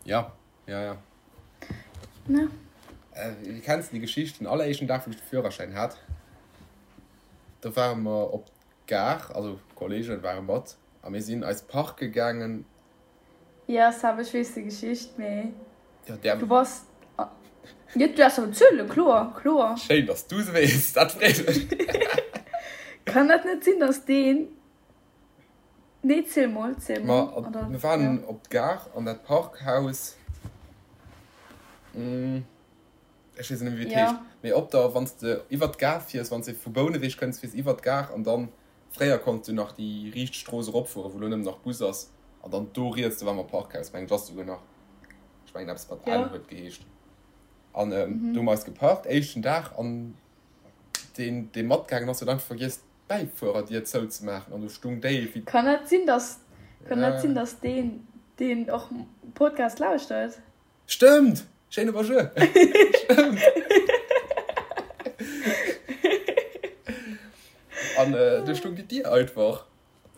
Ja, ja, ja. Ne? Äh, kenns de déi Geschicht, den alleréischten Dag, wou ech de Führerschäin hat, do ware mer op d'Gare, also Kollegen ware mat, a mir sinn eis parke gaangen. Ja, Seb, ech weess déi Geschicht, mee Ja, där. du bass. Jo, du däerfs awer zuelen, kloer, kloer. Schéin, dass du se weess, dat freet mech. Kann dat net sinn, dass deen. Nee, ziel mol, ziel mol. Ma Oder, mir waren ja. op d'Gare an dat Parkhaus, ech weess net méi wéi et Ja. heescht, mee op der, wann s de iwwer d'Gare fiers, wann s de vu Bouneweg kënns, fiers iwwer d'Gare an dann, fréier konns du nach déi riicht Strooss eropfueren, wou elo nëmmen nach Bus ass, an dann do riets, do war mer Parkhaus, mengen ech ass souguer nach, ech mengen eppes mat N Ja. huet geheescht. An do hu mer eis geparkt, éischten Dag, an deen, dee matgaangen ass, huet einfach vergiess, d'Bäifuererdier zouzemaachen an do stung déi wéi. Kann dat sinn, dass, kann dat sinn, Ja. dass deen, deen och Podcast lauschtert? Stëmmt! Schéine Bonjour! Stëmmt! An do stung déi Dier einfach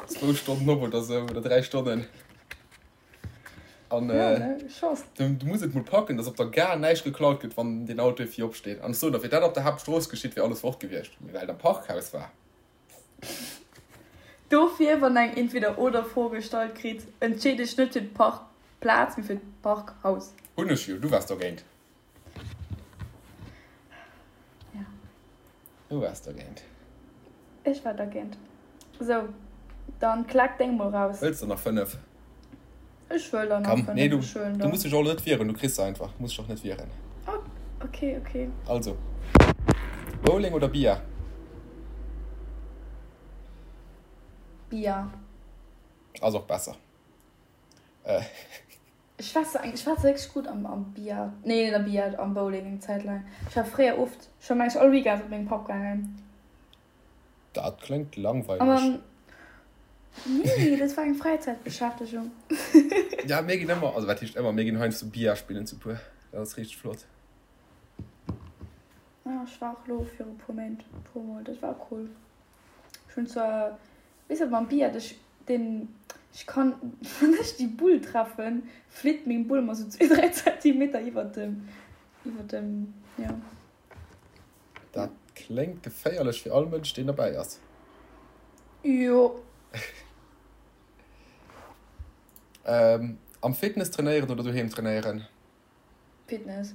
zwou Stonnen op oder sou, oder 3 Stonnen. An Ja, ne? Chance. du, du muss et mol packen, dass op der Gare näischt geklaut gëtt, wann deen Auto vir opsteet. An ech soen der, wier dat op der Haaptstrooss geschitt, wier alles fort gewiescht. Mee well et am Parkhaus war. Dofir, wann eng Entweder-oder-Fro gestallt kritt, entscheet ech net fir d'Parkplaz, mee fir d'Parkhaus. Hunn ech jo, du waars dogéint. Ja. Du waars dergéint. Ech war dergéint. Sou, dann klack deng mol raus. Wëlls de nach 5? Ech wëll der nach Komm, 5. nee, du, Ech huelen du der. muss dech och net wieren, du kriss se einfach. Muss dech och net wieren. Oh, okay, okay. Also, Bowling oder Billard? Billard. Ass och besser. Äh. Ech war se ech war wierklech gutt am am Billard, nee net am Billard, am Bowling eng Zäit laang. Ech war fréier oft, ech war mengen ech all Weekend mat mengem Papp gaangen. Dat kléngt An langweileg. dann, nee, dat war eng Fräizäitbeschäftegung. Ja, mir ginn ëmmer, also wat heescht ëmmer, mir ginn heiansdo Billard spillen zu puer. Dat ass richteg flott. Ja, ech war och elo viru puer Méint e puer Mol, dat war cool. Ech hunn zwar Weess wat mam Billard, ech den ech kann wann ech déi Bull treffen flitt meng Bull emmer sou zwee 3 Zentimeter iwwert dem iwwert dem jo. Dat kléngt geféierlech fir all Mënsch deen derbäi ass. Jo. Am Fitness trainéieren oder doheem trainéieren? Fitness.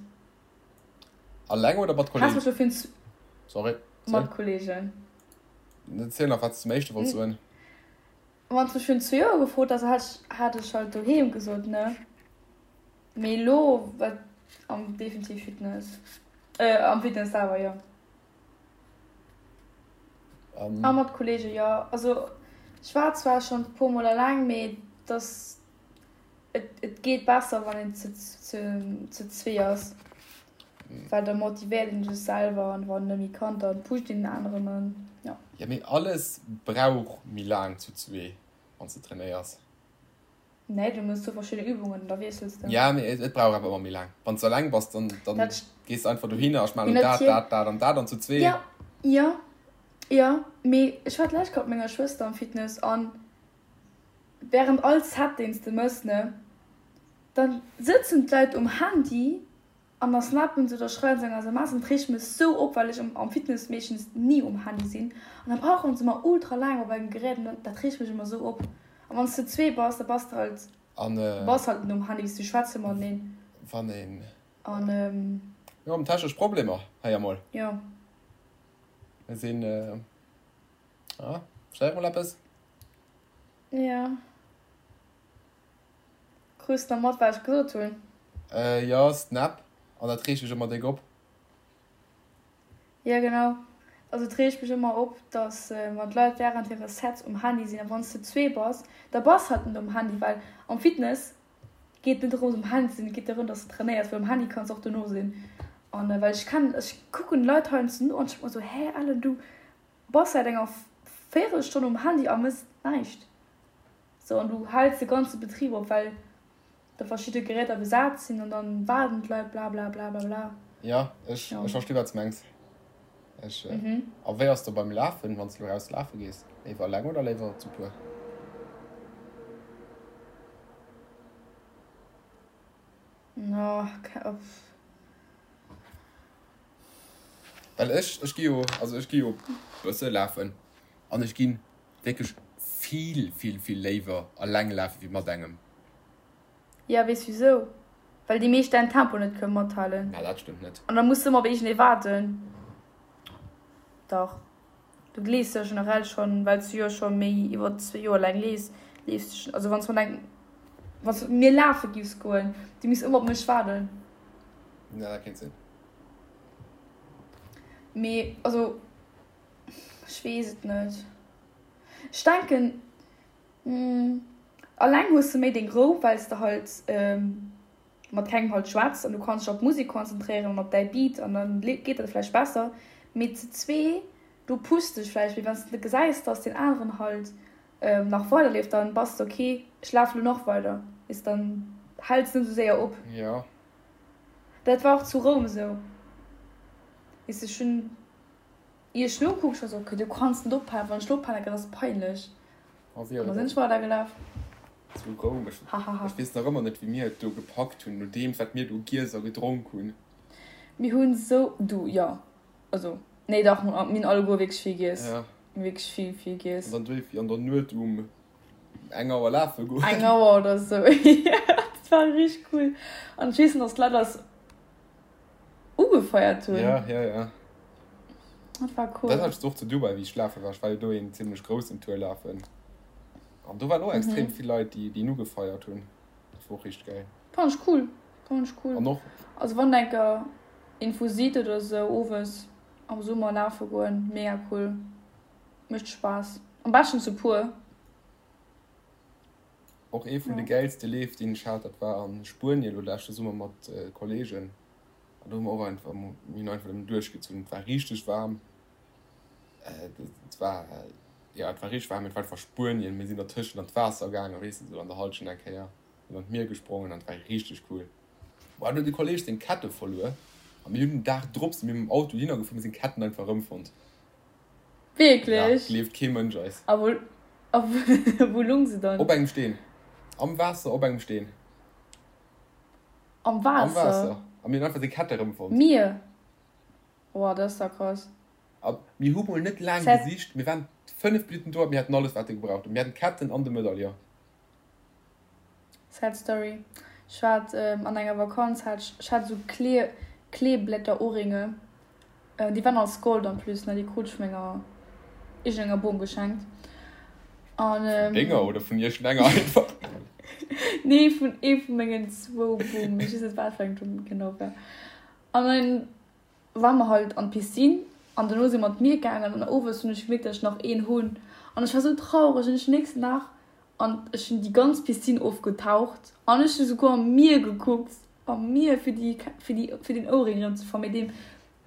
Alleng oder mat Has Kollegen? mech dofir Sorry, mat ziel. Kollegen. Ziel nach wat s zum éischte wollts soen. Wann s mech virun zwee Joer gefrot häss, hätt ech hat ech halt doheem gesot, ne? Mee elo wat am definitiv Fitness. Äh am Fitness selwer, jo. An A mat Kollegen, jo. Also ech war zwar schonn e puer mol eleng, mee dass Et, et geet besser, wann een zu, zu, zu zwee ass. Well da motivéiert een sech selwer an wann en net méi kann, da pusht een den aneren an ja. Ja, mee alles brauch méi laang zu zwee, wann s de trainéiers. Nee, du mëss sou verschidde Übungen an da wiessels de. Ja, mee et brauch awer ëmmer méi laang. Wann s de eleng bass, dann, dann Dat gees de einfach dohinner a ech maachen Mee elo dat, natierlech. dat, dat an dat an zu zwee. Ja, ja, ja, mee ech war d'lescht Kéier mat menger Schwëster am Fitness an Während all Set deens de mëss ne, dann sëtzen d'Leit um Handy an da snappen se oder schreiwen se eng SMS an dat reegt mech sou op, well ech am Fitness meeschtens ni um Handy sinn an da brauchen se mer ultra laang op engem Gerät an dat reegt mech ëmmer sou op. A wann s de zwee bass, da bass de halt, An du bass halt net um Handy, weess du, schwätze mateneen. Wann een. An. Mir hunn technesch Problemer hei emol. Jo. Mir sinn, ah, schreif mol eppes. Jo. Krus de nach mat, wat ech gesot hunn? Jo, Snap. An dat reegt mech ëmmer déck op. Jo genau, also et reegt mech ëmmer op, dass wann d'Leit während hire Sets um Handy sinn, a wann s de zwee bass, da bass halt net um Handy, well am Fitness geet et net dorëms um Handy ze sinn, et geet dorëm dass de trainéiers, well um Handy kanns de och dono sinn. An well ech kennen, ech kucken d'Leit heiansdo no an ech denke mer esou, hä Ellen, du bass säit enger Véierelstonn um Handy a mëss näischt. Sou, an du häls de ganze Betrib op, well da verschidde Geräter besat sinn an dann waarden d'Leit bla bla bla bla bla. Jo, ech ech versti wat s mengs. Ech a wéi ass do beim Lafen, wann s de lo raus lafe gees? Léiwer eleng oder léiwer zu puer? Well ech ech gi jo also ech gi jo bësse lafen an ech ginn wierklech vill vill vill léiwer eleng lafe wéi mat engem. Jo, weess wisou? Well déi meescht däin Tempo net kënne mathalen. Na, dat stëmmt net. An da muss de ëmmer op iergendee waarden. Dach, du leefs jo generell schonn, well s du jo scho méi iwwer zwee Joer laang leefs, leefs du schonn. Also wann s mat engem, wann s mat mir lafe giffs goen, du misst ëmmer op mech waarden. Ja, dat kéint sinn. Mee also, ech weess et net. Ech denken, alleng hues de méi deng Rou, well s de halt mat kengem halt schwätz an du kanns dech op d'Musek konzentréieren an op däi Beat an dann geet dat vläicht besser. Mee zu zwee, do pusst dech vläicht méi, wann s de gesäis, dass deen aneren halt nach weiderleeft, dann bass de ok, ech lafe lo nach weider, weess, dann häls de net esou séier op. Jo. Dat war och zu Roum esou, weess de, ech hunn. Ier ech nokucken, ech war sou, ok, du kanns net ophalen, wann ech lo ophalen, dat ass peinlech. An da sinn ech weidergelaf. Zu Roum, ech ech weess nach ëmmer net, wéi mir et do gepackt hunn, nodeems wat mir do giess a gedronk hunn. Mir hunn sou, du, jo, also, nee dach, mir hunn alleguer wierklech vill giess, wierklech vill, vill giess. An dann duerf an der Nuet um eng Auer lafe goen. Eng Auer oder sou, jo, dat war richteg cool. An ech weess nach, dass d'Leit eis. Ugefeiert hunn. Ja, ja, ja. Dat war cool. Dat hat ech och zu Dubai, wéi ech lafe war. Ech war jo do een zimmlech groussen Tour lafen. An do waren och extrem vill Leit, déi déi en ugefeiert hunn. Dat war och richteg gäil. Fand ech cool. Fand ech cool. An och. Also wann der enker een sidd oder sou owes am Summer lafe goen, mega cool. Mécht Spaass. Am beschten zu puer. Och ee vun de gäilste Leef deen ech hat, dat war a Spuenien elo leschte Summer mat Kollegen. An do hu mer och einfach, mir hunn einfach nëmmen duerchgezunn. Et war richteg waarm, et war, jo et war richteg waarm, et war einfach Spuenien. Mir sinn dertëschent an d'Waasser gaangen, weess de, sou an der Hallschent eng Kéier, sinn an d'Mier gesprongen an et war richteg cool. Bon, do huet e Kolleg seng Kette verluer a mir hunn den Dag drop si mir mam Auto dohinner gefuer, mir seng Ketten einfach erëmfonnt. Wierklech? Ja, gleeft kee Mënsch eis. A wou, a wou lung se dann? Op engem Steen. Am Waasser op engem Steen. Am Waasser? Am Waasser. A mir hunn einfach seng Kette erëmfonnt. Mier? Oh, dat ass da krass. A mir hu mol net laang gesicht. Mir waren 5 Minutten do a mir haten alles, wat e gebraucht huet. Mir haten d'Ketten an de Medaillon. Sad Story, Ech war an enger Vakanz, hat ech, ech hat esou Klee, Kleeblätter-Ohrringe, déi waren aus Gold en plus, ne, déi krut ech vu menger iergendenger Bom geschenkt. An, Vun denger oder vun iergendenger einfach? Nee, vun ee vu mengen zwou Bom, ech weess net wat fir eng genau war. An dann ware mer halt an d'Piscine an dono si mer an d'Mier gaangen an owes hunn ech gemierkt, datt ech nach een hunn an ech war sou traureg an ech den nächsten Dag an ech hunn déi ganz Piscine ofgetaucht an ech hu souguer am Mier gekuckt, am Mier fir déi fir déi fir den Ouring erëm ze fannen, mee deen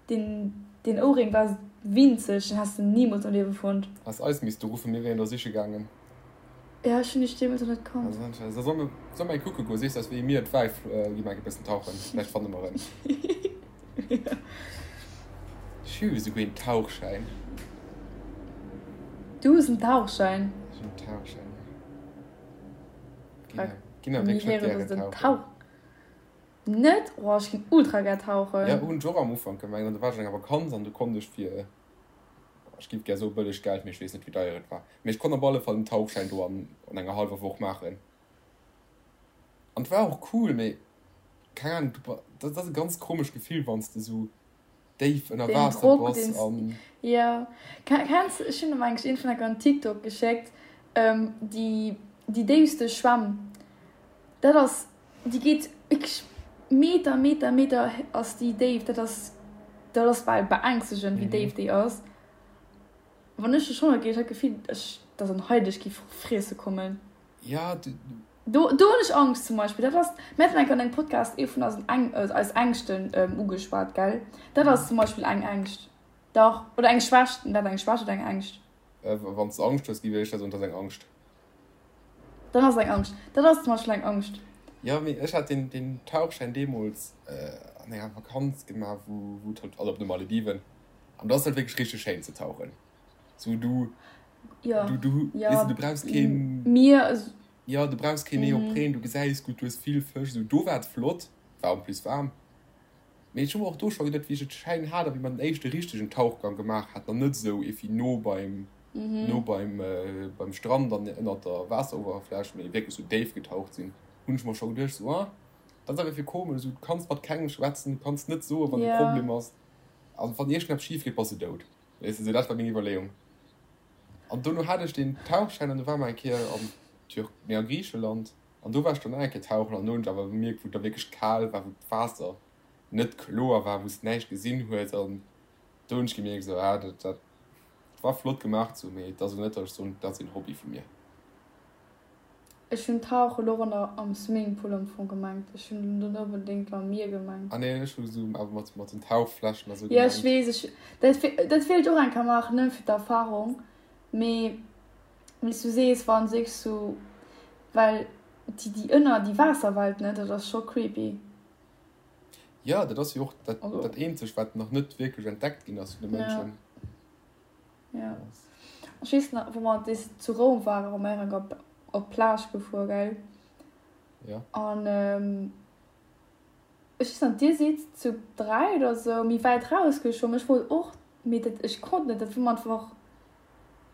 deen deen Ouring war winzeg, den häss de nimools am Liewe fonnt. Häss eis misste ruffen, mir wieren der siche gaangen. Ja, ech hunn iech deemools och net kannt. Da soll mer, soll mer eng kucke goen? Sees eis wéi mir et war, gi mer eng e bëssen tauchen, vläicht fanne mer en. Ech hu esouguer een Tauchschäin. Du hues en Tauchschäin? Ech hunn en Tauchschäin, ja. Ginn awer wierklech net gären tauchen. Net? Oh, ech ginn ultra gär tauchen. Ja, hunn ech och am Ufank gemengt. An du war ech an enger Vakanz an du konnt ech fir, ech giff gär soe bëlleg Geld, mee ech weess net wéi deier et war. Mee ech konnt op alle Fall den Tauchschäin do an. an enger hallwer Woch maachen. An et war och cool, mee keng Ahnung, du, dat ass e ganz komescht Gefill, wann s de sou déif ënner Den Waasser Drock, bass deen s, an. jo. Kenns, ech hunn em eigentlech iergendwann enker en TikTok geschéckt, déi, déi déifste Schwämm, dat ass, déi geet wierklech Meter, Meter, Meter ass déi déif, dat ass, dat ass bal beängstegend, wéi déif déi ass. Wann ech do schwamme géif, ech hat d'Gefill, ech, dass en Hai dech géif friesse kommen. Ja, du. Do, do hunn ech Angscht zum Beispill. Dat ass, mir haten eng Kéier an engem Podcast ee vun eisen Äng, eis Ängschten ugeschwat, gell? Dat ass zum Beispill eng Ängscht. Dach. Oder eng Schwächt. Dat eng Schwächt oder eng Ängscht? Wann s de Angscht hues, gi wéi ech dat soen, dat ass eng Angscht. Dann ass et eng Angscht. Dat ass zum Beispill eng Angscht. Jo, mee ech hat deen, deen Tauchschäin deemools an enger Vakanz gemaach, wou, wou et halt, also op de Malediven, an do ass et halt wierklech richteg schéin ze tauchen. Sou du, Ja, du, du, ja, weess de, du brauchs keen, Mier, jo, du brauchs keen Neopren, du gesäis gutt, du hues vill Fësch, sou do war et flott, war en plus waarm. Mee ech hu mer och do scho geduet, wéi ech et schein hat a wéi mer den éischte richtegen Tauchgang gemaach haten an net esou evi no beim, no beim, beim Strand an ënnert der Waasserowerfläch, mee wierklech sou déif getaucht sinn, hunn ech mer scho geduecht, sou, ah, dat ass awer fir komesch, sou, du kanns mat kengem schwätzen, du kanns net soen, wann e Problem ass, an wann iergendeppes schif geet, bass de dout. Weess de, sou dat war meng Iwwerleeung. An dono hat ech deen Tauchschäin an du war mer eng Kéier an Tür, nee, a Griicheland. An do war ech dann nach eng Kéier tauchen an do hunn ech awer bemierkt, wou et da wierklech kal war, wou d'Waasser net kloer war, wou s de näischt gesinn hues. An do hunn ech gemierkt, esou, ah, dat, dat war flott gemaach sou, mee et ass elo net, datt ech soen, dat ass een Hobby vu mir. Ech hunn Tauche lo och an der, am Swimmingpool am Fong gemengt. Ech hunn net onbedéngt am Mier gemengt. Ah nee, ech hu sou awer mat, mat den Tauchfläschen a sou Jo, ech gemengt. weess, ech, dat, dat wéilt ech och eng Kéier maachen, nëmme fir d'Erfarung, mee. Wéi s du sees, wann sech sou, well déi déi ënner déi Waasserwelt ne, dat ass scho creepy. Jo, dat ass jo och dat dat eenzegt wat nach net wierklech entdeckt ginn ass vun de Mënschen. Jo, ech weess nach wou mer dees zu Roum waren, wou mer eng op op d'Plage gefuer gell? Jo. An Ech weess net, dir sidd zu 3 oder sou méi wäit rausgeschwommen. Ech wollt och, mee dat, ech konnt net, dat war mer einfach,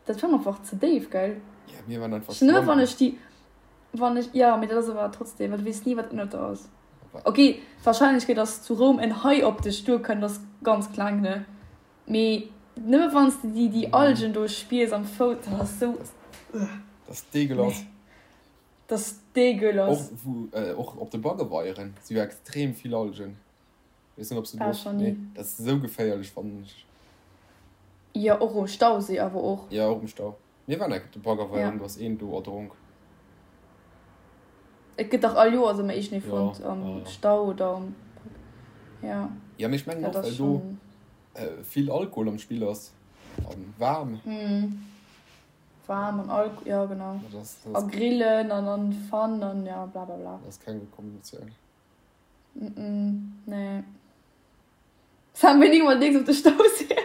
dat war mer einfach ze déif, gell? Ja, mir waren einfach Nëmme wann schwammen. ech déi, wann ech, jo, mee dat ass awer trotzdem, well du weess ni, wat ënnert der ass. Ok, d'Warscheinlechkeet, dass zu Roum en Hai op dech duerkënnt, ass ganz kleng, ne? Mee nëmme wann s de déi, déi Algen do spiers am Fouss, dat ass sou, Dat ass deegelass. nee. Das dégueulasse. Och wou och op de Baggeweieren si jo extrem vill Algen. Weess net ob s de War do schon nee ni. dat ass esou geféierlech fannen ech. Jo och um Stauséi awer och. Jo och um Stau. Mir waren enk op de Baggerweieren Ja. do ass een do erdronk. Et gëtt dach all Joers ëmmer iergendee Jo fonnt am ja ja. Stau oder am ja. Jo mee ech mengen Dat och ass well do schon. vill Alkohol am Spill ass an waarm. Mhm. Waarm an Alk, jo genau. Dat ass, dat A ass, grillen an an Fun an ja bla bla bla. dat ass keng gutt Kombinatioun. Mm nee. Sam, wéini mol deeks op de Stauséi?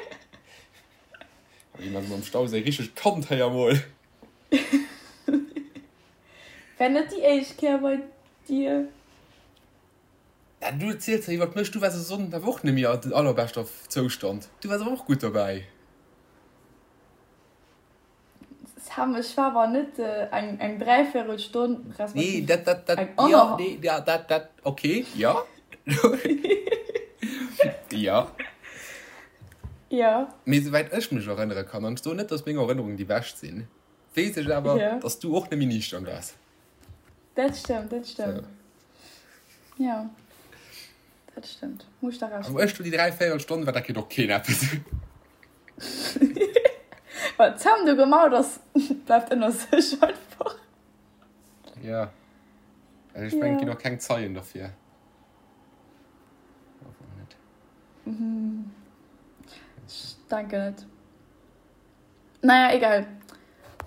Wéi man am Stauséi richteg kannt héier mol. Wär net déi éischt Kéier bei dir. Ja, du erziels jo iwwert mech, du waars e Sonnden awer och net méi an allerbeschter Zoustand. Du waars awer och gutt dobäi. Sam, ech war awer net eng eng dräivéierel Stonn, Nee, respektiv dat, dat, dat, eng jo, anner. nee, ja, dat, dat, okay, jo. Jo. Jo. Mee souwäit ech mech erënnere kann, an ech soen net, dass meng Erënnerungen déi bescht sinn, weess ech awer, Jo. dass du och net méi niichtern waars. Dat stëmmt, dat stëmmt. So. Jo, dat stëmmt. Muss ech der Recht A wou ginn. ech do déi dräivéierel Stonn war, dat kritt och keen eppes. Wat d'Sam do gemaut ass, bleift ënner sech einfach. Ja. Also ech mengen, et ginn Ja. och keng Zeien derfir. Hoffen net. Ech denken net. Naja, egal.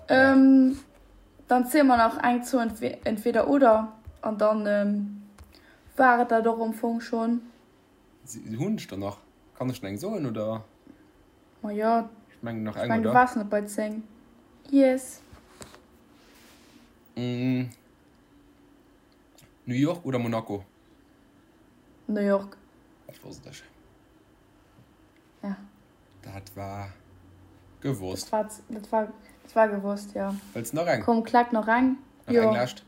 Ja. Ähm, dann zéie mer nach eng zou Entweder oder an dann ähm, war et dat och am Fong schonn. Hunn ech der nach? Kann ech nach eng soen oder? Ma jo, Ech mengen nach ech eng, mengen du oder? waars net bei 10. Yes. New York oder Monaco? New York. Dat wosst ech. Ja. Dat war gewosst. Dat war, dat war, dat. Et war gewosst, jo. Wëlls nach eng? Komm, klack nach eng. Nach eng lescht?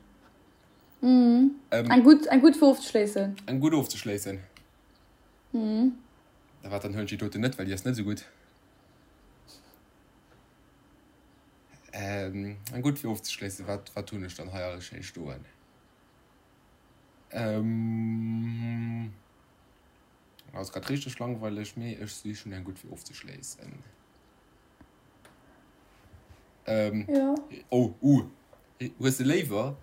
Mhm. Eng gutt, eng gutt fir ofzeschléissen. Eng gutt ofzeschléissen? Mhm. Da wat, dann huelen ech déi doten net, well déi ass net esou gutt. Eng gutt fir ofzeschléissen, wat, wat hunn ech dann hei alles schéi stoen? Ass grad richteg langweileg, mee ech sichen eng gutt fir ofzeschléissen. Ähm, ja. Oh, uh. Hues de léiwer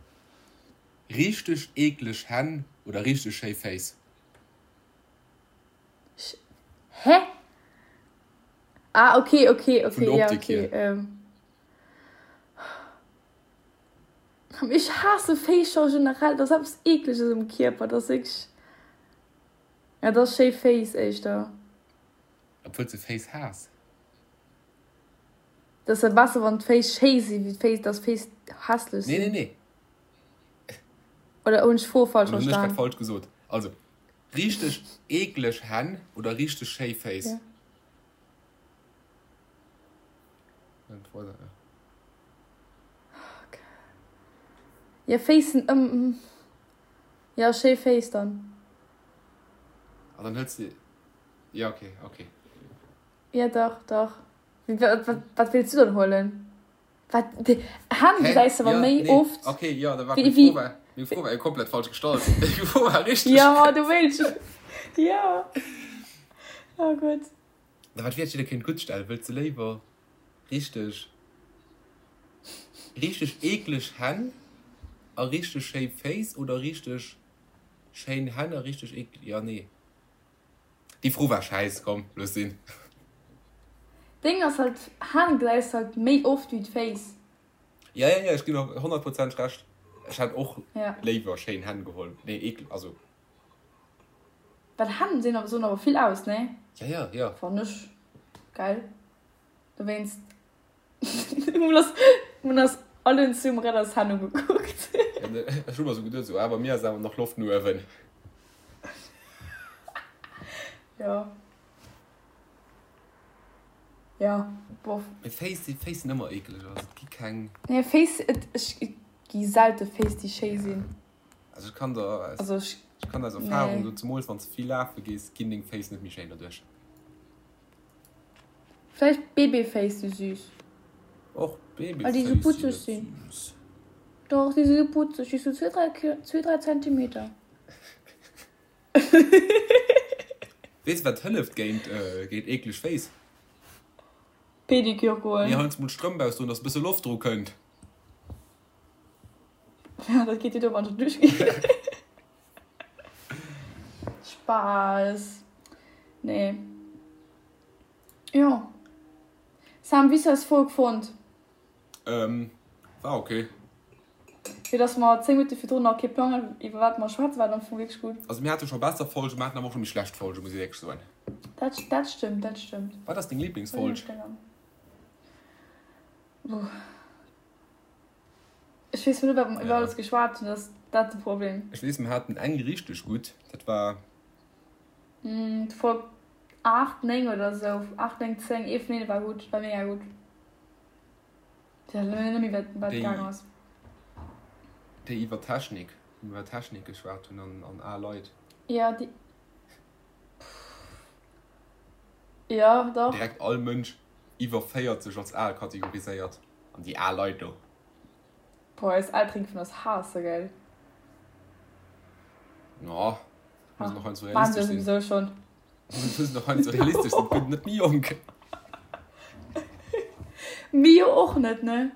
richteg eekleg Hänn oder richteg schéi Féiss? Hä? Ah, okay, okay, okay. Vun der Optik ja, okay. hier. Ähm. Ech haasse Féiss scho generell, dat ass eppes Eekleges um Kierper, dat ass wierklech. Ja, dat ass schéi Féiss éischter. Obwuel s de Féiss haass? Dat ass jo besser wann d'Féiss schéi sinn, wéi d'Féiss, dass d'Féiss hässlech Nee, sinn. nee, nee. Oder hunn ech d'Fro falsch Dann hunn ech grad verstan? falsch gesot. Also, richteg eekleg Hänn oder richteg schéi Féiss? Ja. Ja, Féiss sinn ëm. Ja, schéi Féiss dann. Ah, dann hëls de. Ja, okay, okay. Ja, dach, dach. Wat wéilts du dann huelen? Wat? Hänn gesäis de awer méi oft. Okay, jo, da war meng Fro war, meng Fro war jo komplett falsch gestallt. Meng Fro war richteg. Jo, du wéilts. Jo. Oh Gott. Da wat wier, jidder kéint gutt stellen. Wëlls de léiwer richteg, richteg eekleg Hänn a richteg schéi Féiss oder richteg schéin Hänn a richteg eekleg, jo, nee. Déi Fro war schäiss, komm looss sinn. Deng ass halt, Hänn gesäis halt méi oft wéi d'Féiss. Ja ja ja ech ginn der honnertprozenteg Recht. Ech hätt och Ja. léiwer schéin Hänn geholl. Nee ekel, also. Well Hänn sinn awer soen awer vill aus, nee? Ja ja ja. Fann ech geil. Dowéinst Hun ass allen zum Redders Hänn ugekuckt. Ech hu mer sou geduet, sou, ah, bei mir ass awer nach Loft no uewen. Jo. Jo, bof. Mee Féiss si, Féiss sinn ëmmer eekeleg, also et gi keng. Nee, Féiss, et, ech, et gi selte Féiss, déi schéi sinn. Also ech kann der aus, Also ech, ech kann der aus Erfahrung nee. soen, zemools wann s de vill lafe gees, ginn deng Féiss net méi schéin doduerch. Vläicht Babyface si süß. Och Well déi Babyface sou sinn putzeg net sinn. süß. Doch, déi si sou putzeg, déi sou zwee, dräi, zwee, dräi Zentimeter. Weess wat hëlleft géint géint eekleg Féiss? Pedikür Nee, goen. heiansdo mol d'Strëmp ausdoen, dass e bësse Loft dru kënnt. Ja, dat geet jo do, wann ech duerch ginn. Spaass. Nee. Jo. Sam, wéi hues du eis Folg fonnt? Ähm, war ok. Fir dass mer 10 Minutte virdrun nach kee Plang haten, iwwer wat mer schwätzen, war et am Fong wierklech gutt. Also mir hate scho besser Folgen, mir haten awer och scho méi schlecht Folgen, muss ech wierklech soen. Dat, dat stëmmt, dat stëmmt. Wat ass deng Liblingsfolg? Buh. Ech weess net, wat mer iwwer alles geschwat hunn, dat ass dat de Problem. Ech weess, mer haten eng richteg gutt, dat war. D'Folg 8, 9 oder esou, 8, 9, 10, ee vun deene war gutt, war mega gutt. Ech weess net méi, wat wat gaang ass. Déi iwwer Technik, wou mer iwwer Technik geschwat hunn an an al Leit. Jo, déi. Jo, dach. Direkt all Mënsch iwwer 40 als al kategoriséiert. An déi al Leit do. Boah, eis Elteren géifen eis haassen, gell? No, muss nach heiansdo Maachen se realistesch sinn. souwisou schon. Muss nach heiansdo realistesch sinn, et gëtt net méi jonk. Mir jo och net, ne?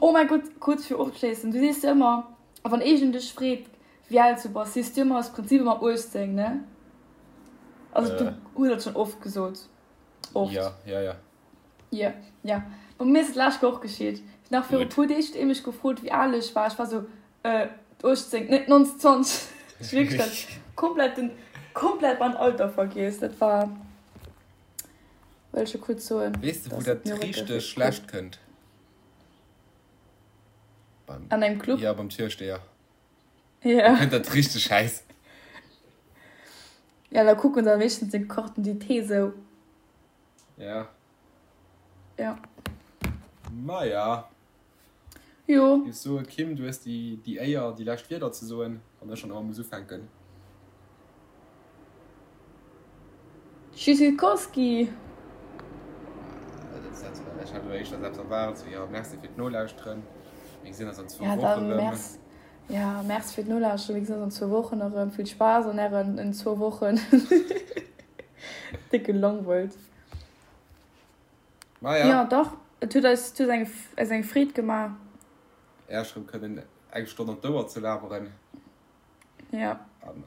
Oh mäi Gott, kuerz fir ofzeschléissen, du sees jo ëmmer, wann eegent dech freet, wéi al s du bass, sees du ëmmer aus Prinzip ëmmer 18, ne? Also du hues dat schonn oft gesot. Oft. Ja, ja, ja. Jo, jo. Bei mir ass et d'lescht Woch geschitt. Nach viru Gutt. puer Deeg huet ee mech gefrot, wéi al ech war. Ech war sou, äh, 18, net 29. Ech wierklech dat komplett den, komplett mein Alter vergiess. Dat war, wëll ech jo kuerz soen, Weess de, wou dass et dat mir richteg wierklech schlecht kënnt? Beim, an engem Club? ja, beim Türsteher. Da Ja. kënnt dat richteg schäiss. Ja, da kucken se meeschtens deng Carte d'identité sou. Ja. Ja. Maja. Jo. Ech soe Kim, du hues déi déi Éier déi lescht Wierder ze soen, wann ech schonn ëmmer muss ufänken. Tschüssikowski! Ech hat elo éischter selbst erwaart, sou jo, merci fir d'Nolauschteren, mir gesinn eis an zwou Ja, Wochen dann erëm. merci, ja, merci fir d'Nolauschteren, mir gesinn eis an zwou Wochen erëm. Vill Spaass an ären in zwou Wochen. Déck gelangweilt. Maja. Jo dach, et huet eis, et huet eng, eis eng Freed gemaach. Äerch rëm kënnen eng Stonn an d'Ouer ze laberen. Ja. An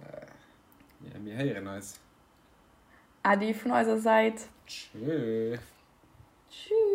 mir héieren eis. Äddi vun eiser Säit. Tschö. Tschüss.